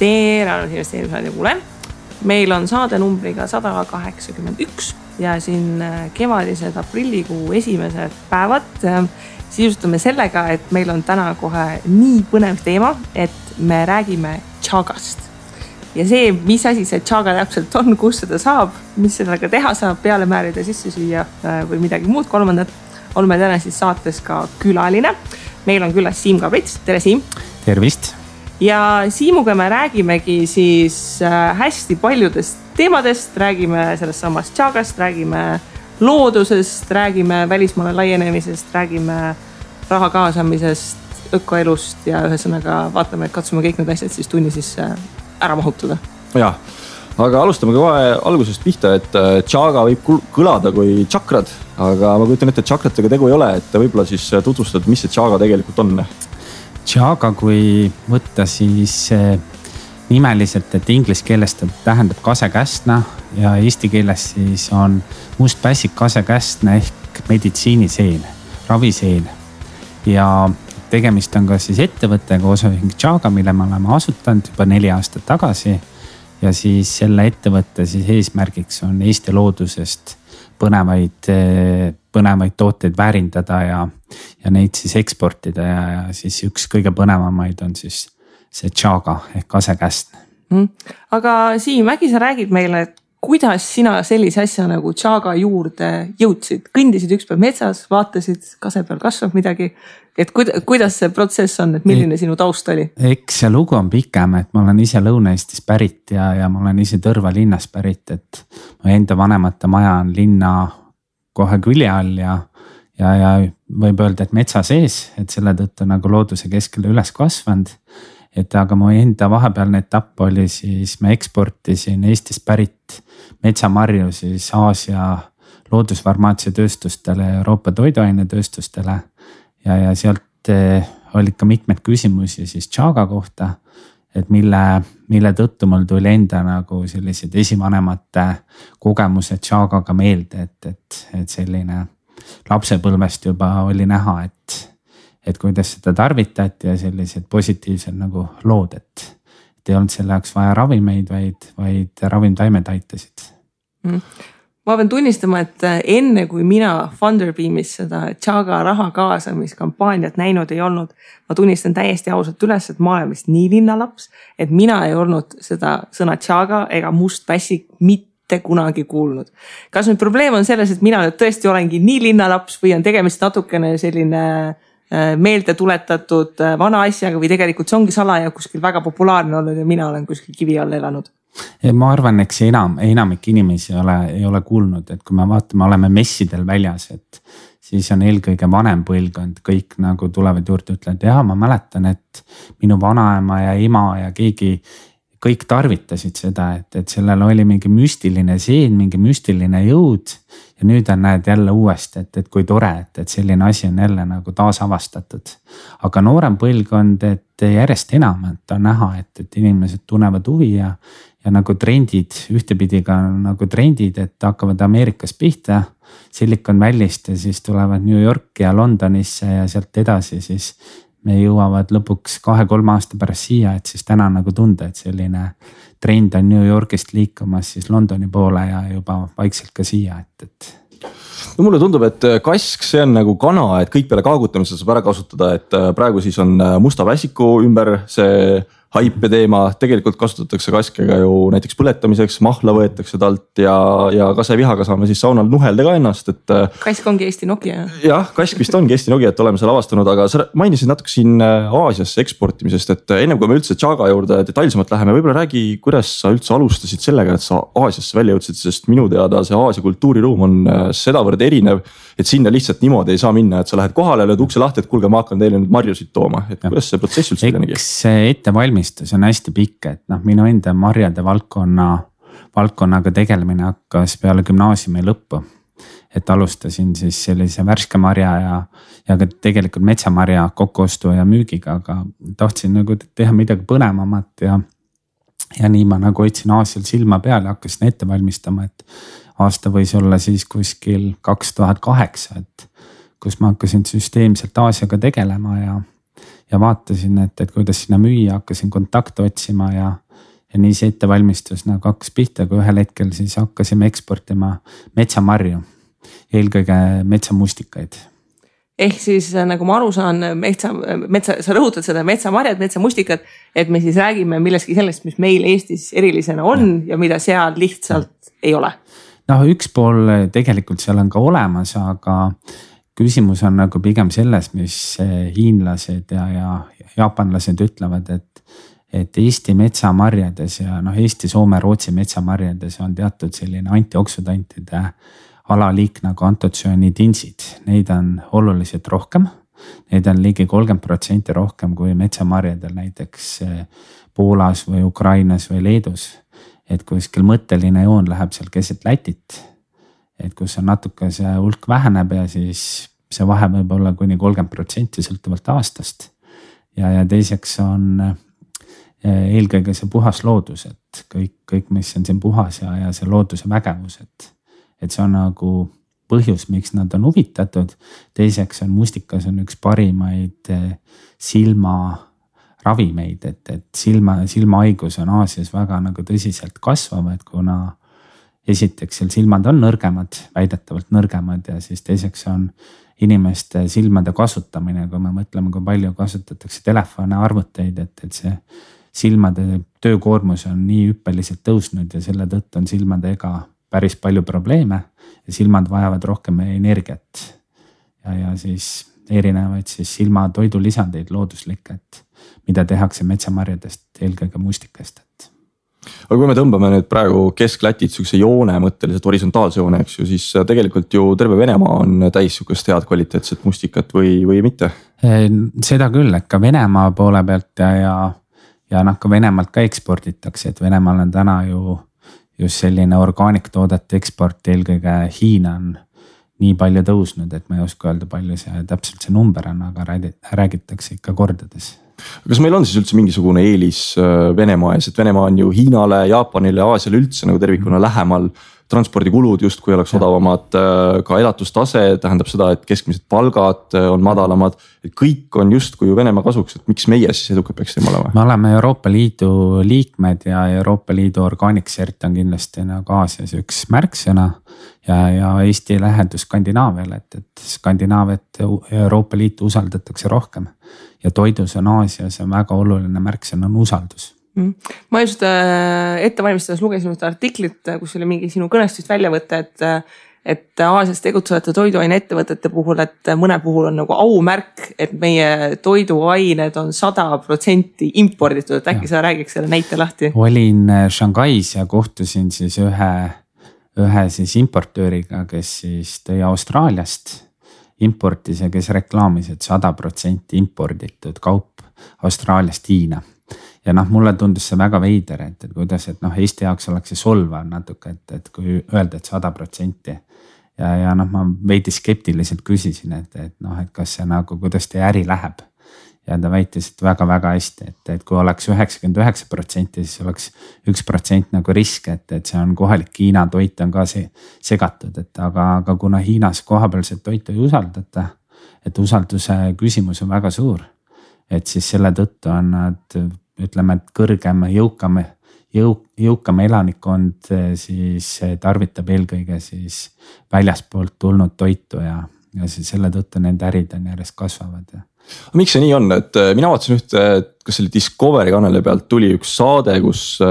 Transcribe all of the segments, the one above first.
tere investeerimisradio kuule. Meil on saade numbriga 181 ja siin kevadised aprillikuu esimesed päevad sisustame sellega, et meil on täna kohe nii põnev teema, et me räägime Chagast. Ja see, mis asi see Chaga täpselt on, kus seda saab, mis sellega teha saab, peale määrida sisse süüa või midagi muud kolmandat, oleme täna siis saates ka külaline. Meil on külas Siim Kabrits. Tere, Siim! Tervist! Ja Siimuga me räägimegi siis hästi paljudest teemadest, räägime sellest samast Chagast, räägime loodusest, räägime välismaale laienemisest, räägime raha kaasamisest, ökoelust ja ühesõnaga vaatame, et katsume kõik need asjad siis tunni sisse ära mahutada. Ja, aga alustame kohe algusest pihta, et Chaga võib kõlada kui chakrad, aga ma kujutan ette, et chakratega tegu ei ole, et võib-olla siis tutvustad, mis see Chaga tegelikult on? Chaga, kui võtta siis nimeliselt, et inglise keeles ta tähendab kasekästna ja eesti keeles siis on mustpässik kasekästna ehk meditsiiniseen, raviseen. Ja tegemist on ka siis ettevõttega osaühing Chaga, mille me oleme asutanud juba 4 aastat tagasi. Ja siis selle ettevõtte siis eesmärgiks on Eesti loodusest põnevaid tooteid väärindada ja neid siis eksportida ja siis üks kõige põnevamaid on siis see Chaga ehk kasekästn. Aga Siim, äkki sa räägid meile, et kuidas sina sellise asja nagu Chaga juurde jõudsid? Kõndisid ükspäev metsas, vaatasid, kase peal kasvab midagi. Et kuidas see protsess on, et milline sinu taust oli? Eks see lugu on pikem, et ma olen ise Lõuna-Eestis pärit ja ma olen ise Tõrva linnas pärit, et mu enda vanemate maja on linna kohe külje all ja võib öelda, et metsa sees, et selle tõttu nagu looduse keskele üles kasvanud. Et aga mu enda vahepealne etapp oli siis, ma eksportisin Eestist pärit metsamarju siis Aasia loodusfarmaatsiatööstustele ja Euroopa toiduainetööstustele ja sealt olid ka mitmed küsimusi siis Chaga kohta, et mille tõttu mul tuli enda nagu sellised esivanemate kogemused Chagaga meelde, et selline lapsepõlvest juba oli näha, et kuidas seda tarvitati ja sellised positiivsed nagu lood, et ei olnud selle jaoks vaja ravimeid, vaid ravimtaimed aitasid. Ma pean tunnistama, et enne kui mina Funderbeamis seda Chaga raha kaasamiskampaaniat näinud ei olnud, ma tunnistan täiesti ausalt üles, et ma olen vist nii linnalaps, et mina ei olnud seda sõna Chaga ega mustpässik mitte kunagi kuulnud. Kas nüüd probleem on selles, et mina nüüd tõesti olengi nii linnalaps või on tegemist natukene selline meelde tuletatud vana asjaga või tegelikult see ongi salaja kuskil väga populaarne olnud ja mina olen kuskil kivi all elanud? Ma arvan, eks enamik inimesi ei ole kuulnud, et kui me vaatame, oleme messidel väljas, et siis on eelkõige vanem põlvkond, kõik nagu tulevad juurde, ütlevad, ma mäletan, et minu vanaema ja ema ja kõik tarvitasid seda, et sellel oli mingi müstiline seen, mingi müstiline jõud ja nüüd on näed jälle uuesti, et kui tore, et selline asi on jälle nagu taasavastatud. Aga noorem põlvkond, et järjest enam, et on näha, et inimesed tunnevad huvi ja nagu trendid, ühtepidi ka nagu trendid, et hakkavad Ameerikas pihta, Silicon Valley'st ja siis tulevad New Yorki ja Londonisse ja sealt edasi siis me jõuavad lõpuks 2-3 aasta pärast siia, et siis täna nagu tunda, et selline trend on New Yorkist liikumas siis Londoni poole ja juba vaikselt ka siia, et. No mulle tundub, et kask, see on nagu kana, et kõik peale kaagutamisel saab ära kasutada, et praegu siis on musta pässiku ümber see haipe teema, tegelikult kasutatakse kaskega ju näiteks põletamiseks, mahla võetakse talt ja kasevihaga saame siis saunal nuhelda ka ennast, et. Kask ongi Eesti Nokia. Jah, kask vist ongi Eesti Nokia, et oleme seal avastanud, aga sa mainisid natuke siin Aasiasse eksportimisest, et ennem kui me üldse Chaga juurde detailsemalt läheme, võib-olla räägi, kuidas sa üldse alustasid sellega, et sa Aasiasse välja jõudsid, sest minu teada see Aasia kultuuriruum on sedavõrd erinev, et sinna lihtsalt niimoodi ei saa minna, et sa lähed kohale, lööd ukse lahti, et kuulge, ma hakkan teile nüüd marjusid tooma, et kuidas see protsess üldse telenegi? Eks ettevalmistus on hästi pikk, et minu enda marjade valdkonnaga tegelemine hakkas peale gümnaasiumi lõppu. Et alustasin siis sellise värske marja ja ka tegelikult metsamarja kokkuostu ja müügiga, aga tahtsin nagu teha midagi põnevamat ja nii ma nagu hoidsin Aasial silma peale ja hakkasin ette valmistama, et aasta võis olla siis kuskil 2008, et kus ma hakkasin süsteemselt Aasiaga tegelema ja vaatasin, et kuidas sinna müüa, hakkasin kontakte otsima ja ja nii see ettevalmistus nagu hakkas pihta, kui ühel hetkel siis hakkasime eksportima metsamarju, eelkõige metsamustikaid. Ehk siis nagu ma aru saan, sa rõhutad seda metsamarjad, metsamustikad, et me siis räägime millestki sellest, mis meil Eestis erilisena on ja mida seal lihtsalt ei ole. Noh, üks pool tegelikult seal on ka olemas, aga küsimus on nagu pigem selles, mis hiinlased ja jaapanlased ütlevad, et Eesti metsamarjades ja Eesti, Soome, Rootsi metsamarjades on teatud selline antioksüdantide alaliik nagu antotsüaniidinsid. Neid on oluliselt rohkem. Neid on ligi 30% rohkem kui metsamarjadel näiteks Poolas või Ukrainas või Leedus. Et kuskil mõtteline joon läheb seal keset Lätit. Et kus on natuke see hulk väheneb ja siis see vahe võib olla kuni 30% sõltuvalt aastast. Ja teiseks on eelkõige see puhas loodus, et kõik mis on siin puhas ja see looduse vägevus, et see on nagu põhjus, miks nad on huvitatud. Teiseks on mustikas on üks parimaid silmaravimeid, et silmahaigus on Aasias väga nagu tõsiselt kasvavad, kuna esiteks seal silmad on nõrgemad, väidetavalt nõrgemad ja siis teiseks on inimeste silmade kasutamine, kui me mõtleme, kui palju kasutatakse telefone, arvuteid, et see silmade töökoormus on nii hüppeliselt tõusnud ja selle tõttu on silmadega päris palju probleeme ja silmad vajavad rohkem energiat ja siis erinevaid siis silmatoidulisandeid looduslikke, mida tehakse metsamarjadest, eelkõige mustikast. Aga kui me tõmbame nüüd praegu Kesk-Lätit sükse joone mõtteliselt horisontaalse joone, eks ju, siis tegelikult ju terve Venemaa on täis sükest head kvaliteetset mustikat või mitte? Seda küll, et ka Venemaa poole pealt ja ka Venemaalt ka eksporditakse, et Venemaal on täna ju just selline orgaaniktoodete eksport, eelkõige Hiina on nii palju tõusnud, et ma ei oska öelda, palju see täpselt see number on, aga räägitakse ikka kordades. Kas meil on siis üldse mingisugune eelis Venemaa ees, et Venemaa on ju Hiinale, Jaapanile, Aasiale üldse nagu tervikuna lähemal, transpordikulud justkui oleks odavamad, ka elatustase tähendab seda, et keskmised palgad on madalamad, et kõik on justkui ju Venemaa kasuks, et miks meie siis edukad peaksime olema? Me oleme Euroopa Liidu liikmed ja Euroopa Liidu organiksert on kindlasti nagu Aasias üks märksõna ja Eesti lähedus Skandinaaviale, et Skandinaaviat Euroopa Liitu usaldatakse rohkem ja toidus on Aasias on väga oluline märksõna on usaldus. Ma just ettevalmistades lugesin ühte artiklit, kus oli mingi sinu kõnestust välja võtta, et Aasias tegutsevate toiduaine ettevõtete puhul, et mõne puhul on nagu aumärk, et meie toiduained on 100% imporditud, et äkki sa räägiks selle näite lahti? Olin Shanghais ja kohtusin siis ühe siis importööriga, kes siis tõi Austraaliast importis ja kes reklaamis, et 100% imporditud kaup Austraaliast Hiina. Ja mulle tundus see väga veider, et kuidas, et Eesti jaoks oleks see solvav natuke, et kui öelda, et 100% ja ma veidi skeptiliselt küsisin, et kas see nagu, kuidas teie äri läheb. Ja ta väitis, et väga-väga hästi, et kui oleks 99%, siis oleks 1% nagu risk, et see on kohalik Hiina toit on ka segatud, aga kuna Hiinas kohapealset toitu ei usaldata, et usalduse küsimus on väga suur, et siis selle tõttu on nad ütleme, et kõrgem, jõukam elanikkond siis tarvitab eelkõige siis väljaspoolt tulnud toitu ja siis selle tõttu nende ärid on järjest kasvavad. Miks see nii on, et mina vaatasin ühte, kas selle Discovery kanali pealt tuli üks saade, kus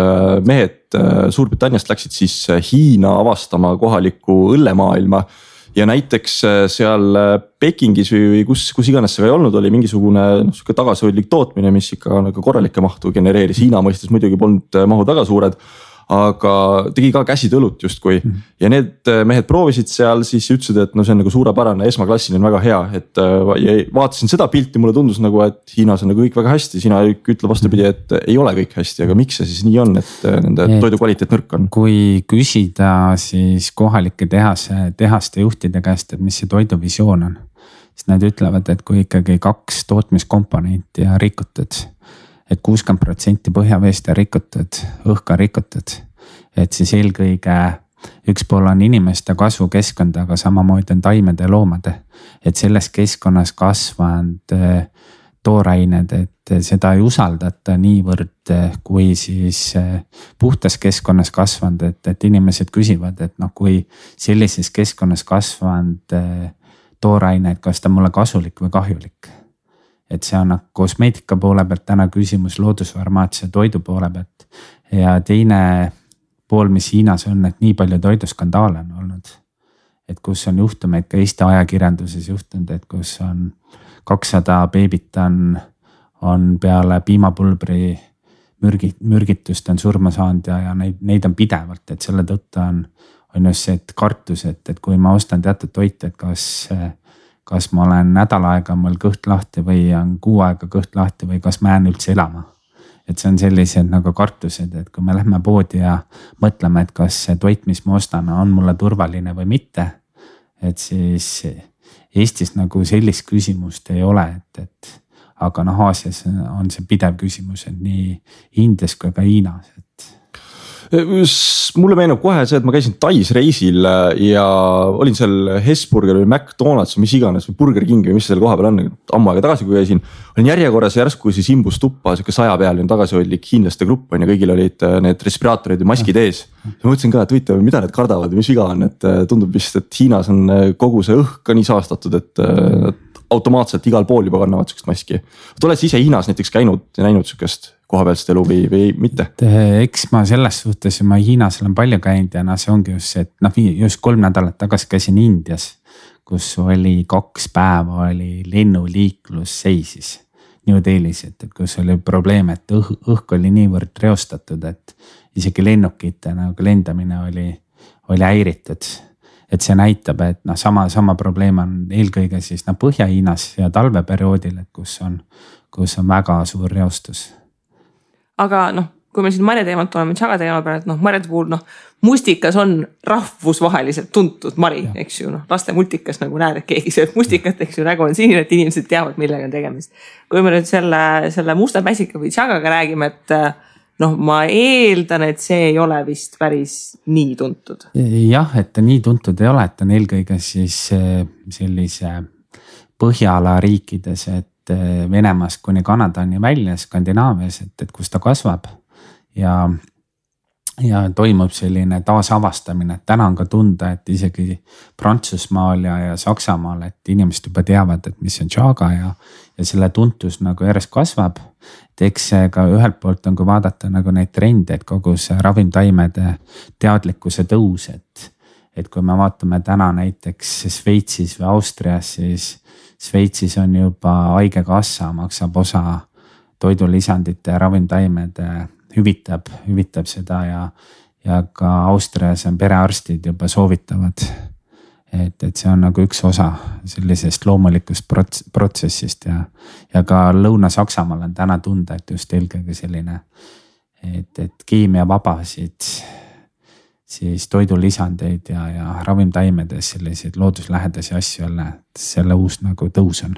mehed Suurbritanniast läksid siis Hiina avastama kohalikku õllemaailma. Ja näiteks seal Pekingis või kus iganes see ei olnud, oli mingisugune tagasihoidlik tootmine, mis ikka nagu korralikke mahtu genereeris. Hiina mõistes muidugi polnud mahud väga suured, aga tegi ka käsitöölut justkui. Ja need mehed proovisid seal, siis ütlesid, et see on nagu suurepärane, esmaklassiline, väga hea. Et vaatasin seda pilti, mulle tundus nagu, et Hiinas on nagu kõik väga hästi. Sina ütle vastupidi, et ei ole kõik hästi, aga miks see siis nii on, et nende toidu kvaliteet nõrk on? Kui küsida siis kohalike tehaste juhtide käest, et mis see toiduvisioon on, siis nad ütlevad, et kui ikkagi 2 tootmiskomponenti ja rikutud, et 60% põhjaveest on rikutud, õhka rikutud, et siis eelkõige üks pool on inimeste kasvukeskkond, aga samamoodi on taimede ja loomade, et selles keskkonnas kasvanud toorained, et seda ei usaldata niivõrd, kui siis puhtas keskkonnas kasvanud, et inimesed küsivad, et noh, kui sellises keskkonnas kasvanud toorained, kas ta mulle kasulik või kahjulik. Et see on kosmeetika poole pealt täna küsimus, loodusfarmaatsia toidu poole pealt ja teine pool, mis Hiinas on, et nii palju toiduskandaale on olnud. Et kus on juhtumeid ka Eesti ajakirjanduses juhtunud, et kus on 200 beebit on peale piimapulbri mürgitust on surma saanud ja neid on pidevalt, et selle tõttu on just see, et kartus, et kui ma ostan teatud toite, et kas ma olen nädal aega mul kõht lahti või on kuu aega kõht lahti või kas ma jään üldse elama. Et see on sellised nagu kartused, et kui me lähme poodi ja mõtleme, et kas see toit, mis ma ostan, on mulle turvaline või mitte, et siis Eestis nagu sellist küsimust ei ole, et aga noh, Aasias on see pidev küsimus, et nii Indias kui ka Hiinas, et. Mulle meenub kohe see, et ma käisin Tais reisil ja olin seal Hesburger või McDonald's või mis iganes või Burger King või mis seal koha peal on, ammu aega tagasi, kui käisin. Olin järjekorras järsku siis imbus tuppa, siuke 100 peal, tagasihoidlik hiinlaste grupp on ja kõigil olid need respiraatorid ja maskid ees. Ja ma mõtlesin ka, et võite, mida need kardavad ja mis viga on, et tundub vist, et Hiinas on kogu see õhk ka nii saastatud, et automaatselt igal pool juba kannavad sükest maski. Oled ise Hiinas näiteks käinud ja näinud sükest kohapealset elu või mitte? Eks ma selles suhtes, ma Hiinas olen palju käinud ja see ongi just see, et just 3 nädalat tagasi käisin Indias, kus oli 2 päeva oli lennuliiklus seisis New Delhis, et kus oli probleem, et õhk oli niivõrd reostatud, et isegi lennukite nagu lendamine oli häiritud. Et see näitab, et sama probleem on eelkõige siis Põhja-Hiinas ja talveperioodil, et kus on väga suur reostus. Aga kui me siin marja teemalt oleme, Chaga teema peale, et marjade puhul mustikas on rahvusvaheliselt tuntud mari, eks ju, laste multikas nagu näed, et keegi sööb mustikat, eks ju, nägu on sinine, et inimesed teavad, millega on tegemist. Kui me nüüd selle musta päsika või Chagaga räägime, et ma eeldan, et see ei ole vist päris nii tuntud. Jah, et nii tuntud ei ole, et on eelkõige siis sellise Põhjala riikides, et Venemaast kuni Kanadani välja Skandinaavias, et kus ta kasvab ja toimub selline taasavastamine, et täna on ka tunda, et isegi Prantsusmaal ja Saksamaal, et inimesed juba teavad, et mis on Chaga ja selle tuntus nagu järjest kasvab. Et eks ka ühelt poolt on, kui vaadata nagu neid trende, et kogu see ravimtaimede teadlikkuse tõus, et kui me vaatame täna näiteks Šveitsis või Austrias, siis Šveitsis on juba haigekassa maksab osa toidulisandite ja ravimtaimede hüvitab seda ja ka Austrias on perearstid juba soovitavad, et see on nagu üks osa sellisest loomulikust protsessist ja ka Lõuna-Saksamaal on täna tunda, et just eelkõige selline, et keemiavabasid siis toidulisandeid ja ravimtaimedes selliseid looduslähedasi asju jälle, et selle uus nagu tõus on.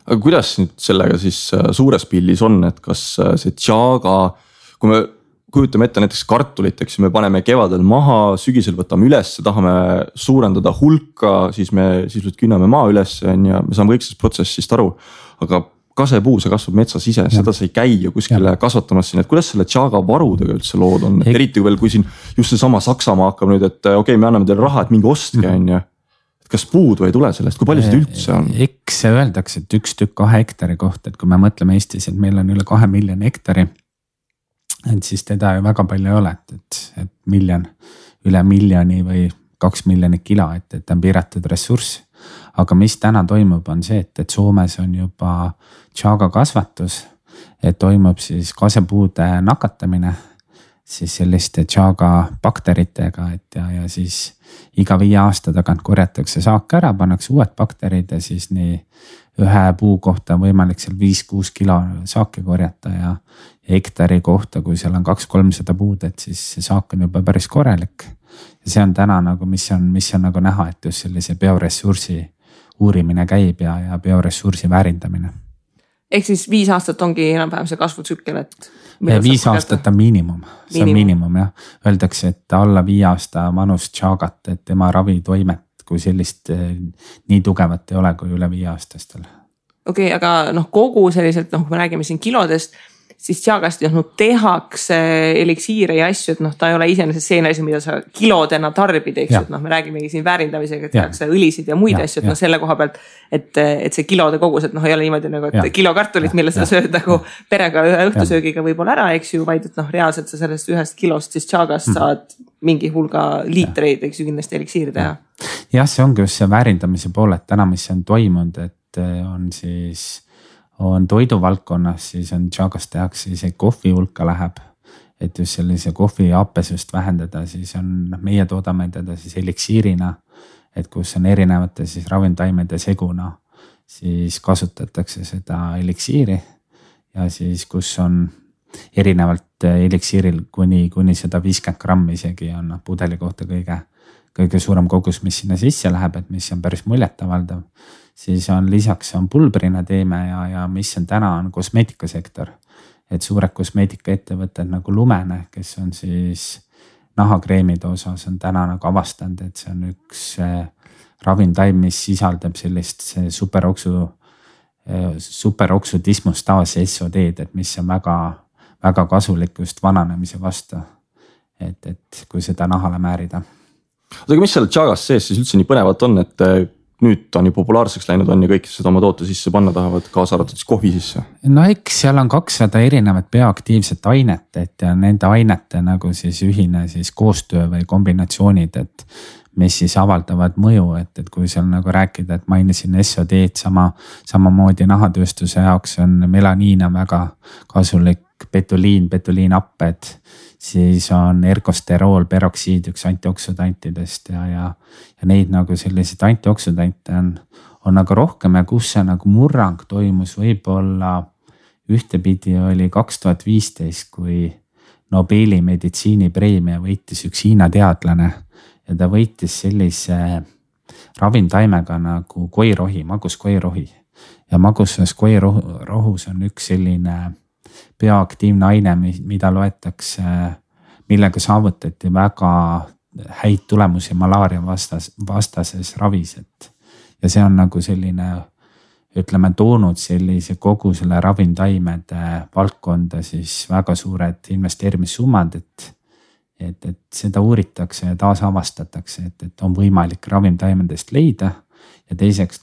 Aga kuidas nüüd sellega siis suures pildis on, et kas see Chaga, kui me kujutame ette näiteks kartuliteks, me paneme kevadel maha, sügisel võtame üles, tahame suurendada hulka, siis me künname maa üles ja me saame kõik sellest protsessist aru, aga kasepuu, see kasvab metsas ise, seda sa ei käi ju kuskile kasvatamas siin, et kuidas selle Chaga varudega üldse lood on, et eriti kui siin just see sama Saksamaa hakkab nüüd, et okei, me anname teile raha, et mingi ostke on ju. Kas puudu ei tule sellest, kui palju seda üldse on? Eks öeldakse, et 1 tükk 2 hektari kohta, et kui me mõtleme Eestis, et meil on üle 2 miljoni hektari, et siis teda ju väga palju ei ole, et miljon, üle miljoni või 2 miljonit kilo, et on piiratud ressurss. Aga mis täna toimub on see, et Soomes on juba Chaga kasvatus, et toimub siis kasepuude nakatamine siis selliste Chaga bakteritega, et ja siis iga 5 aasta tagant korjatakse saak ära, pannakse uued bakterid ja siis nii ühe puu kohta on võimalik seal 5-6 kilo saaki korjata ja hektari kohta, kui seal on 200-300 puud, et siis see saak on juba päris korralik. Ja see on täna nagu, mis on nagu näha, et just sellise bioressursi uurimine käib ja bioressursi väärindamine. Ehk siis 5 aastat ongi enam-vähem see kasvutsükkel, et 5 aastat on miinimum, see on miinimum jah. Öeldakse, et alla 5 aasta vanust Chagat, et tema ravitoimet kui sellist nii tugevat ei ole kui üle 5 aastastel. Okei, aga noh, kogu selliselt, noh, kui me räägime siin kilodest, siis Chagast tehakse eliksiire ja asju, et noh, ta ei ole iseenesest see asi, mida sa kilodena tarbid, eks, et noh, me räägimegi siin väärindamisega, et tehakse õlisid ja muid asju, et noh, selle koha pealt, et see kilode kogus, et noh, ei ole niimoodi nagu, et kilo kartulit, mille sa sööd nagu perega ühe õhtusöögiga võib-olla ära, eks ju, vaid et noh, reaalselt sa sellest ühest kilost siis Chagast saad mingi hulga liitreid, eks ju, kindlasti eliksiiri teha. Jah, see ongi just see väärindamise pool, et täna, mis on toimunud, et on toiduvaldkonnas, siis on Chagast tehakse isegi kohvi hulka läheb, et just sellise kohvi happesust vähendada, siis on meie toodame teda siis eliksiirina, et kus on erinevate siis ravimtaimede seguna, siis kasutatakse seda eliksiiri ja siis kus on erinevalt eliksiiril kuni 150 grammi isegi on pudeli kohta kõige suurem kogus, mis sinna sisse läheb, et mis on päris muljetavaldav. Siis on lisaks on pulbrina teeme ja mis on täna on kosmeetikasektor. Et suured kosmeetikaettevõtted nagu Lumene, kes on siis nahakreemide osas on täna nagu avastanud, et see on üks ravimtaim, mis sisaldab sellist superoksu dismustaas SOD-d, et mis on väga kasulik just vananemise vastu. Et kui seda nahale määrida. Aga mis seal Chagast sees siis üldse nii põnevat on, et nüüd ta on ju populaarseks läinud on ja kõik seda oma toote sisse panna tahavad, kaasa arvatud siis kohvi sisse? No eks seal on 200 erinevat bioaktiivset ainet, et ja nende ainete nagu siis ühine siis koostöö või kombinatsioonid, et mis siis avaldavad mõju, et kui seal nagu rääkida, et mainisin SOD-d samamoodi nahatööstuse jaoks on melaniin on väga kasulik, betuliinapped, siis on ergosterool, peroksiid üks antioksüdantidest ja neid nagu selliseid antioksüdante on nagu rohkem ja kus see nagu murrang toimus võib-olla ühtepidi oli 2015, kui Nobeli meditsiinipreemia võitis üks Hiina teadlane ja ta võitis sellise ravimtaimega nagu koirohi, maguskoirohi ja magusas koirohus on üks selline bioaktiivne aine, mida loetakse, millega saavutati väga häid tulemusi malaaria vastases ravis, ja see on nagu selline, ütleme, toonud sellise kogu selle ravimtaimede valdkonda siis väga suured investeerimissummad, et seda uuritakse ja taasavastatakse, et on võimalik ravimtaimedest leida ja teiseks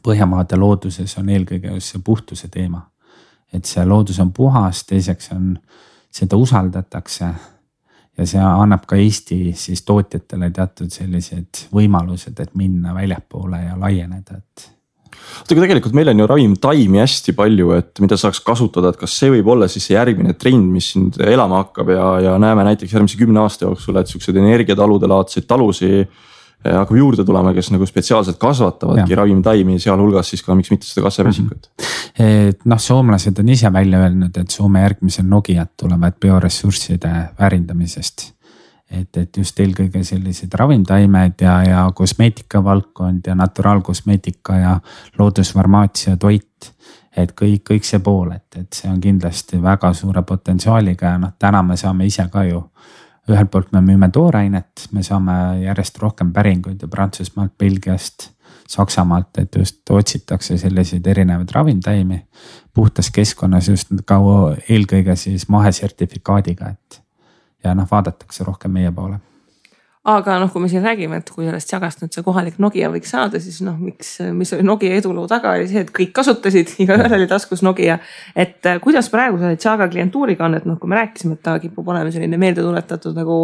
Põhjamaade looduses on eelkõige just see puhtuse teema. Et see loodus on puhas, teiseks on, seda usaldatakse ja see annab ka Eesti siis tootjatele teatud sellised võimalused, et minna väljapoole ja laieneda. Aga tegelikult meil on ju ravimtaimi hästi palju, et mida saaks kasutada, et kas see võib olla siis see järgmine trend, mis siin elama hakkab ja näeme näiteks järgmise 10 aasta jooksul, et sellised energiatalude laadseid talusi hakkab juurde tulema, kes nagu spetsiaalselt kasvatavadki ravimtaimi, sealhulgas siis ka miks mitte seda kassavesikut. Soomlased on ise välja öelnud, et Soome järgmisel Nokiat tulevad bioressursside väärindamisest. Et just eelkõige sellised ravimtaimed ja kosmeetika valdkond ja naturaalkosmeetika ja loodusfarmaatsia toit. Et kõik see pool, et see on kindlasti väga suure potentsiaaliga ja täna me saame ise ka ju ühelt poolt me müüme toorainet, me saame järjest rohkem päringuid ja Prantsusmaalt, Belgiast, Saksamaalt, et just otsitakse selliseid erinevaid ravimtaimi puhtas keskkonnas just ka eelkõige siis mahesertifikaadiga, et ja vaadatakse rohkem meie poole. Aga kui me siin räägime, et kui sellest Chagast nüüd see kohalik Nokia võiks saada, siis mis oli Nokia eduloo taga oli see, et kõik kasutasid, igaühel oli taskus Nokia. Et kuidas praegu see Chaga klientuuriga on, et kui me rääkisime, et ta kipub olema selline meeldetuletatud nagu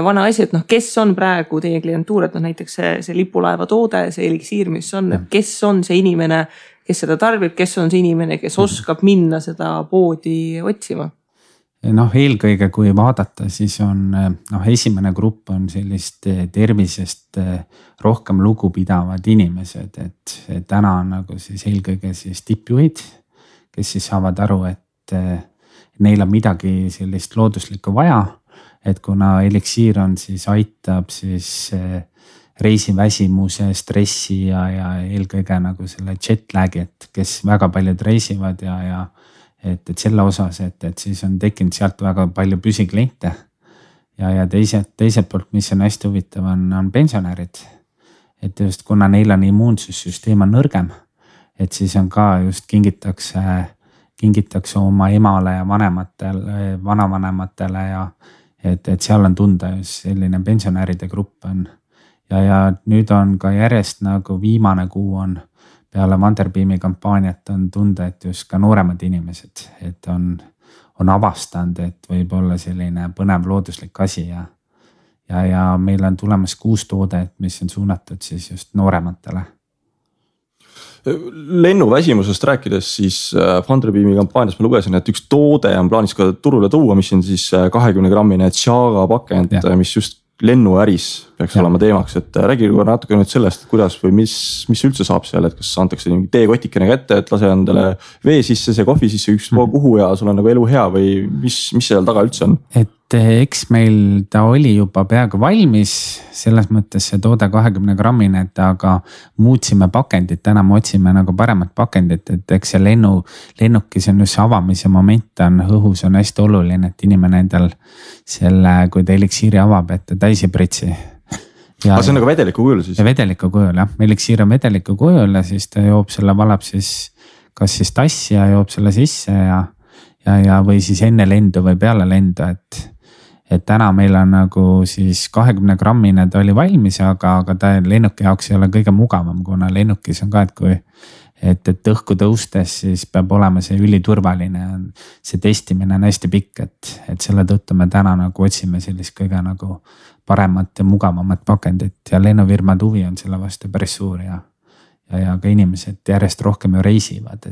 vana asi, et kes on praegu teie klientuur, et näiteks see lipulaeva toode, see eliksiir, mis on, et kes on see inimene, kes seda tarbib, kes on see inimene, kes oskab minna seda poodi otsima? Eelkõige kui vaadata, siis on esimene grupp on sellist tervisest rohkem lugupidavad inimesed, et täna on nagu siis eelkõige siis tippjuhid, kes siis saavad aru, et neil on midagi sellist looduslikku vaja, et kuna eliksiir on siis aitab siis reisiväsimuse, stressi ja eelkõige nagu selle jetlagi, et kes väga paljud reisivad ja et selle osas, et siis on tekkinud sealt väga palju püsikliente ja teiselt poolt, mis on hästi huvitav, on pensionärid. Et just kuna neil on immuunsussüsteem on nõrgem, et siis on ka just kingitakse oma emale ja vanavanematele ja et seal on tunda just selline pensionäride grupp on. Ja nüüd on ka järjest nagu viimane kuu on peale Funderbeami kampaaniat on tunda, et just ka nooremad inimesed, et on avastanud, et võib olla selline põnev looduslik asi ja meil on tulemas 6 toodet, mis on suunatud siis just noorematele. Lennuväsimusest rääkides siis Funderbeami kampaanias ma lugesin, et üks toode on plaanis ka turule tuua, mis on siis 20-grammine Chaga pakend, mis just lennuäris peaks olema teemaks, et räägi natuke nüüd sellest, et kuidas või mis üldse saab seal, et kas antakse teekotikene kätte, et lase endale vee sisse, see kohvi sisse ükspuha kuhu ja sul on nagu elu hea või mis seal taga üldse on? Et eks meil ta oli juba peaaegu valmis, selles mõttes see toode 20-grammine, et aga muutsime pakendit, täna me otsime nagu paremat pakendit, et eks see lennukis on just avamise moment on õhus on hästi oluline, et inimene endal selle, kui ta eliksiiri avab, et ta täis ei pritsi. Aga see on nagu vedeliku kujul siis? Vedeliku kujul jah, eliksiir on vedeliku kujul ja siis ta joob selle, valab siis kas siis tassi ja joob selle sisse ja või siis enne lendu või peale lendu, et täna meil on nagu siis 20-grammine ta oli valmis, aga ta lennuki jaoks ei ole kõige mugavam, kuna lennukis on ka, et õhku tõustes siis peab olema see üliturvaline, see testimine on hästi pikk, et selle tõttu me täna nagu otsime sellist kõige nagu paremat ja mugavamat pakendit ja lennufirmad huvi on selle vastu päris suur ja ka inimesed järjest rohkem ju reisivad,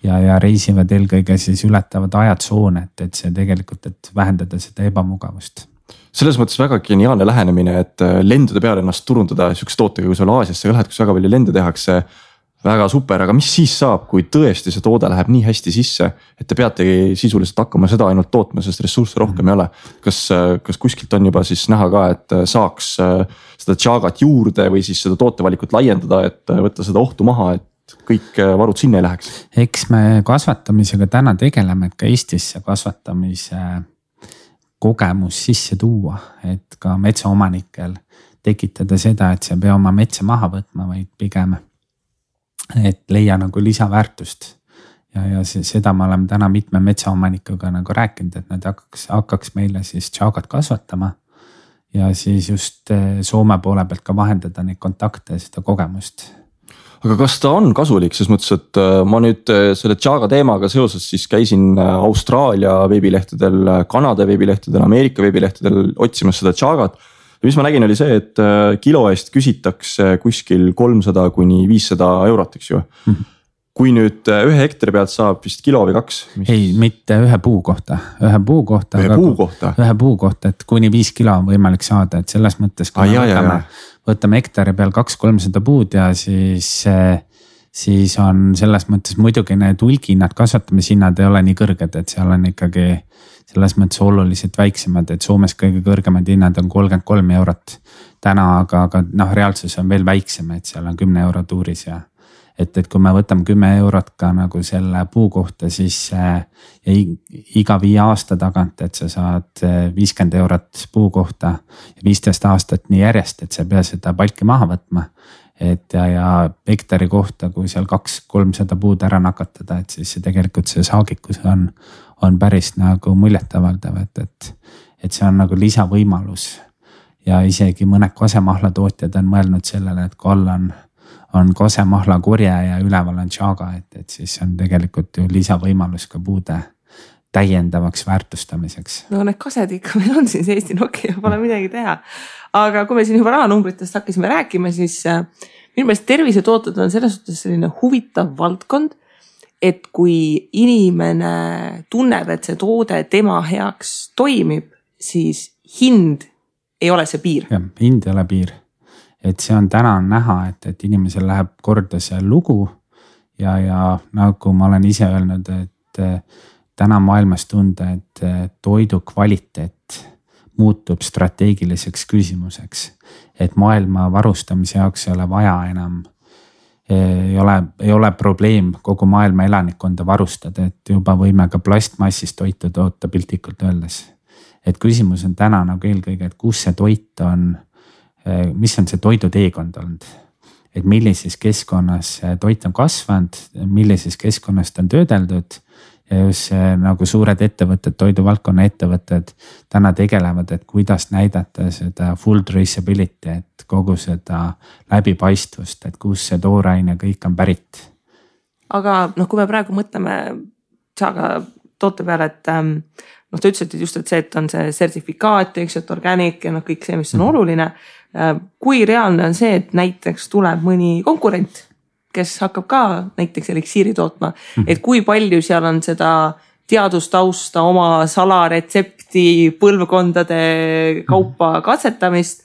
ja reisivad eelkõige siis ületavad ajatsoone, et see tegelikult, et vähendada seda ebamugavust. Selles mõttes väga geniaalne lähenemine, et lendude peale ennast turundada sihukese tootega, kui sul Aasiasse ka lähed, kus väga palju lende tehakse, väga super, aga mis siis saab, kui tõesti see toode läheb nii hästi sisse, et te peategi sisuliselt hakkama seda ainult tootma, sest ressursse rohkem ei ole. Kas kuskilt on juba siis näha ka, et saaks seda Chagat juurde või siis seda tootevalikut laiendada, et võtta seda ohtu maha, et kõik varud sinna ei läheks? Eks me kasvatamisega täna tegeleme, et ka Eestisse kasvatamise kogemus sisse tuua, et ka metsaomanikel tekitada seda, et see ei pea oma metsa maha võtma, vaid pigem et leia nagu lisaväärtust ja seda me oleme täna mitme metsaomanikuga nagu rääkinud, et nad hakkaks meile siis Chagat kasvatama ja siis just Soome poole pealt ka vahendada neid kontakte ja seda kogemust. Aga kas ta on kasulik, ses mõttes, et ma nüüd selle Chaga teemaga seoses siis käisin Austraalia veebilehtedel, Kanada veebilehtedel, Ameerika veebilehtedel otsimas seda Chagat. Ja mis ma nägin oli see, et kilo eest küsitakse kuskil 300 kuni 500 eurot, eks ju. Kui nüüd 1 hektari pealt saab vist kilo või 2? Ei, mitte ühe puu kohta. Ühe puu kohta, et kuni 5 kilo on võimalik saada, et selles mõttes kui võtame hektari peal 200-300 puud ja siis on selles mõttes muidugi need hulgihinnad, kasvatamishinnad ei ole nii kõrged, et seal on ikkagi selles mõttes oluliselt väiksemad, et Soomes kõige kõrgemad hinnad on 33 eurot täna, aga reaalsus on veel väiksem, et seal on 10 euro tuuris ja et kui me võtame 10 eurot ka nagu selle puu kohta, siis iga 5 aasta tagant, et sa saad 50 eurot puu kohta ja 15 aastat nii järjest, et sa ei pea seda palki maha võtma. Et ja hektari kohta, kui seal 200-300 puud ära nakatada, et siis tegelikult see saagikus on päris nagu muljetavaldav, et see on nagu lisavõimalus ja isegi mõned kosemahla tootjad on mõelnud sellele, et kui all on kosemahla korje ja üleval on Chaga, et siis on tegelikult ju lisavõimalus ka puude täiendavaks väärtustamiseks. No need kased ikka meil on siin Eesti Nokia, pole midagi teha. Aga kui me siin juba rahanumbritest hakkasime rääkima, siis minu meelest tervisetooted on selles suhtes selline huvitav valdkond, et kui inimene tunneb, et see toode tema heaks toimib, siis hind ei ole see piir. Ja, hind ei ole piir. Et see on täna näha, et inimesel läheb korda see lugu ja nagu ma olen ise öelnud, et täna maailmas tunda, et toidu kvaliteet muutub strateegiliseks küsimuseks, et maailma varustamise jaoks ei ole vaja enam, ei ole probleem kogu maailma elanikkonda varustada, et juba võime ka plastmassist toitu toota piltlikult öeldes. Et küsimus on täna nagu eelkõige, et kus see toit on, mis on see toiduteekond olnud. et millises keskkonnas see toit on kasvanud, millises keskkonnas ta on töödeldud. Ja just see nagu suured ettevõtted, toiduvaldkonna ettevõtted täna tegelevad, et kuidas näidata seda full traceability, et kogu seda läbipaistvust, et kus see tooraine kõik on pärit. Aga kui me praegu mõtleme Chaga toote peale, et ta ütles, et just, et see, et on see sertifikaat, eks, et organic ja kõik see, mis on oluline. Kui reaalne on see, et näiteks tuleb mõni konkurent, kes hakkab ka näiteks eliksiiri tootma, et kui palju seal on seda teadustausta, oma salaretsepti, põlvkondade kaupa katsetamist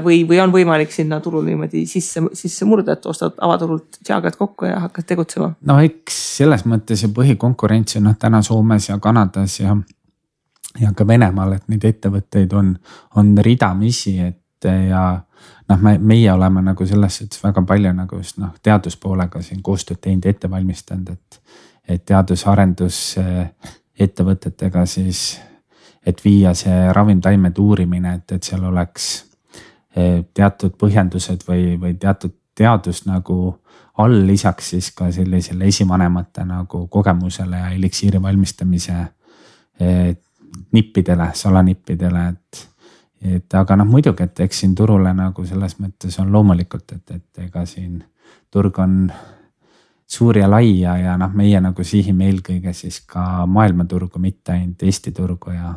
või on võimalik sinna turul niimoodi sisse murda, et ostad avaturult Chagat kokku ja hakkad tegutsema? No eks selles mõttes ja põhikonkurents on täna Soomes ja Kanadas ja ka Venemaal, et neid ettevõtteid on ridamisi, et ja meie oleme nagu selles suhtes väga palju nagu just teaduspoolega siin koostööd teinud, ette valmistanud, et teadus-arendus ettevõtetega siis, et viia see ravimtaimede uurimine, et seal oleks teatud põhjendused või teatud teadus nagu all, lisaks siis ka sellisele esivanemate nagu kogemusele ja eliksiiri valmistamise nippidele, salanippidele, et aga muidugi, et eks siin turule nagu selles mõttes on loomulikult, et ega siin turg on suur ja lai ja meie nagu sihime eelkõige siis ka maailmaturgu, mitte ainult Eesti turgu ja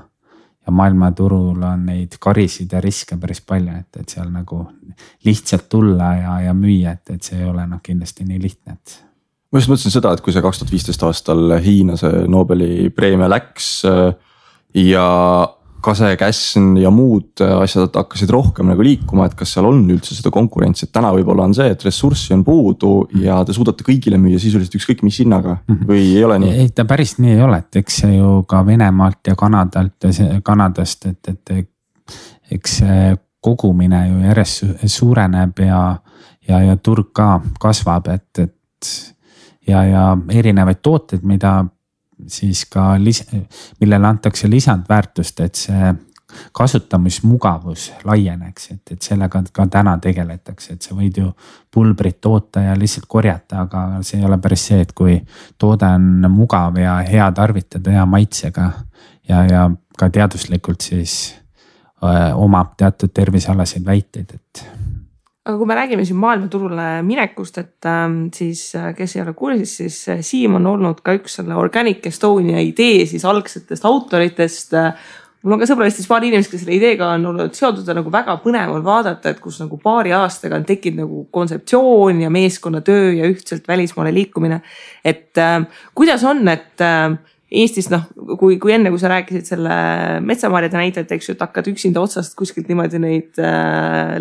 maailmaturul on neid karisid ja riske päris palju, et seal nagu lihtsalt tulla ja müüa, et see ei ole kindlasti nii lihtne, et. Ma just mõtlesin seda, et kui see 2015 aastal Hiina see Nobeli preemia läks ja Kase-Käsn ja muud asjad hakkasid rohkem nagu liikuma, et kas seal on üldse seda konkurentsi, et täna võib-olla on see, et ressurssi on puudu ja te suudate kõigile müüa sisuliselt ükskõik mis hinnaga või ei ole nii? Ei, ta päris nii ei ole, et eks see ju ka Venemaalt ja Kanadast, et eks see kogumine ju järjest suureneb ja turg ka kasvab, et ja erinevaid tooteid, mida siis ka millele antakse lisandväärtust, et see kasutamismugavus laieneks, et sellega ka täna tegeletakse, et sa võid ju pulbrit toota ja lihtsalt korjata, aga see ei ole päris see, et kui toode on mugav ja hea tarvitada, hea maitsega ja ka teaduslikult siis omab teatud tervisealaseid väiteid, et. Aga kui me räägime siin maailmaturule minekust, et siis kes ei ole kursis, siis Siim on olnud ka üks selle Organic Estonia idee siis algsetest autoritest. Mul on ka sõbralistis paari inimest, kes selle ideega on olnud seotud ja nagu väga põnev on vaadata, et kus nagu paari aastaga on tekkinud nagu kontseptsioon ja meeskonnatöö ja ühtselt välismaale liikumine. Et kuidas on, et Eestis, kui enne, kui sa rääkisid selle metsamarjade näitajat, eks ju, et hakkad üksinda otsast kuskilt niimoodi neid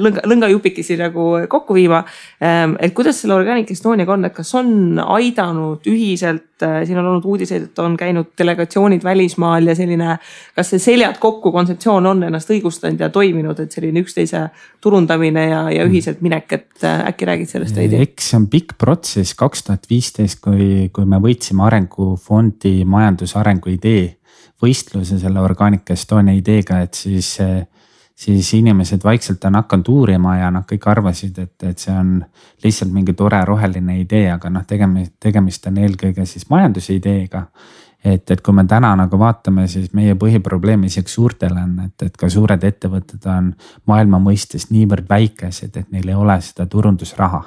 lõngajupikesi nagu kokku viima. Et kuidas selle Organic Estoniaga on, et kas on aidanud ühiselt, siin on olnud uudiseid, et on käinud delegatsioonid välismaal ja selline, kas see seljad kokku kontseptsioon on ennast õigustanud ja toiminud, et selline üksteise turundamine ja ühiselt minek, et äkki räägid sellest veidi? Eks see on pikk protsess 2015, kui me võitsime Arengufondi majandusarengu idee võistluse selle Organic Estonia ideega, et siis inimesed vaikselt on hakanud uurima ja kõik arvasid, et see on lihtsalt mingi tore roheline idee, aga tegemist on eelkõige siis majanduse ideega. Et kui me täna nagu vaatame, siis meie põhiprobleem isegi suurtel on, et ka suured ettevõtted on maailma mõistes niivõrd väikesed, et neil ei ole seda turundusraha.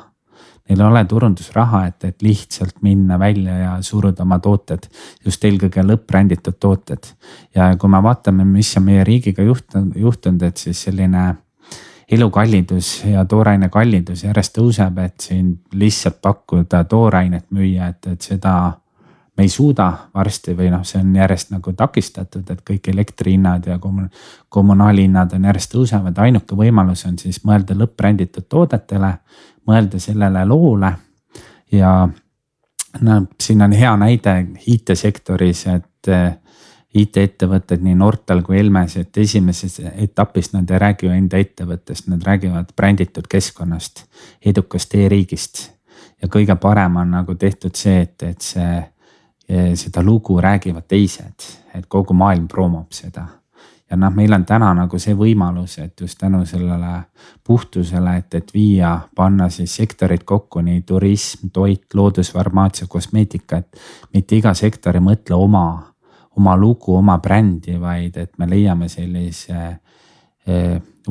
Neil ei ole turundusraha, et lihtsalt minna välja ja suruda oma tooted, just eelkõige lõppränditud tooted. Ja kui me vaatame, mis on meie riigiga juhtunud, et siis selline elukallidus ja tooraine kallidus järjest tõuseb, et siin lihtsalt pakkuda toorainet müüa, et seda me ei suuda varsti või see on järjest nagu takistatud, et kõik elektrihinnad ja kommunaalhinnad on järjest tõusevad. Ainuke võimalus on siis mõelda lõppränditud toodetele, mõelda sellele loole ja siin on hea näide IT-sektoris, et IT-ettevõtted nii Nortal kui Elmes, et esimeses etapis nad ei räägi ju enda ettevõttest, nad räägivad bränditud keskkonnast, edukast e-riigist ja kõige parem on nagu tehtud see, et seda lugu räägivad teised, et kogu maailm promob seda ja meil on täna nagu see võimalus, et just tänu sellele puhtusele, et viia, panna siis sektorid kokku, nii turism, toit, loodusfarmaatsia, kosmeetika, et mitte iga sektor ei mõtle oma lugu, oma brändi, vaid et me leiame sellise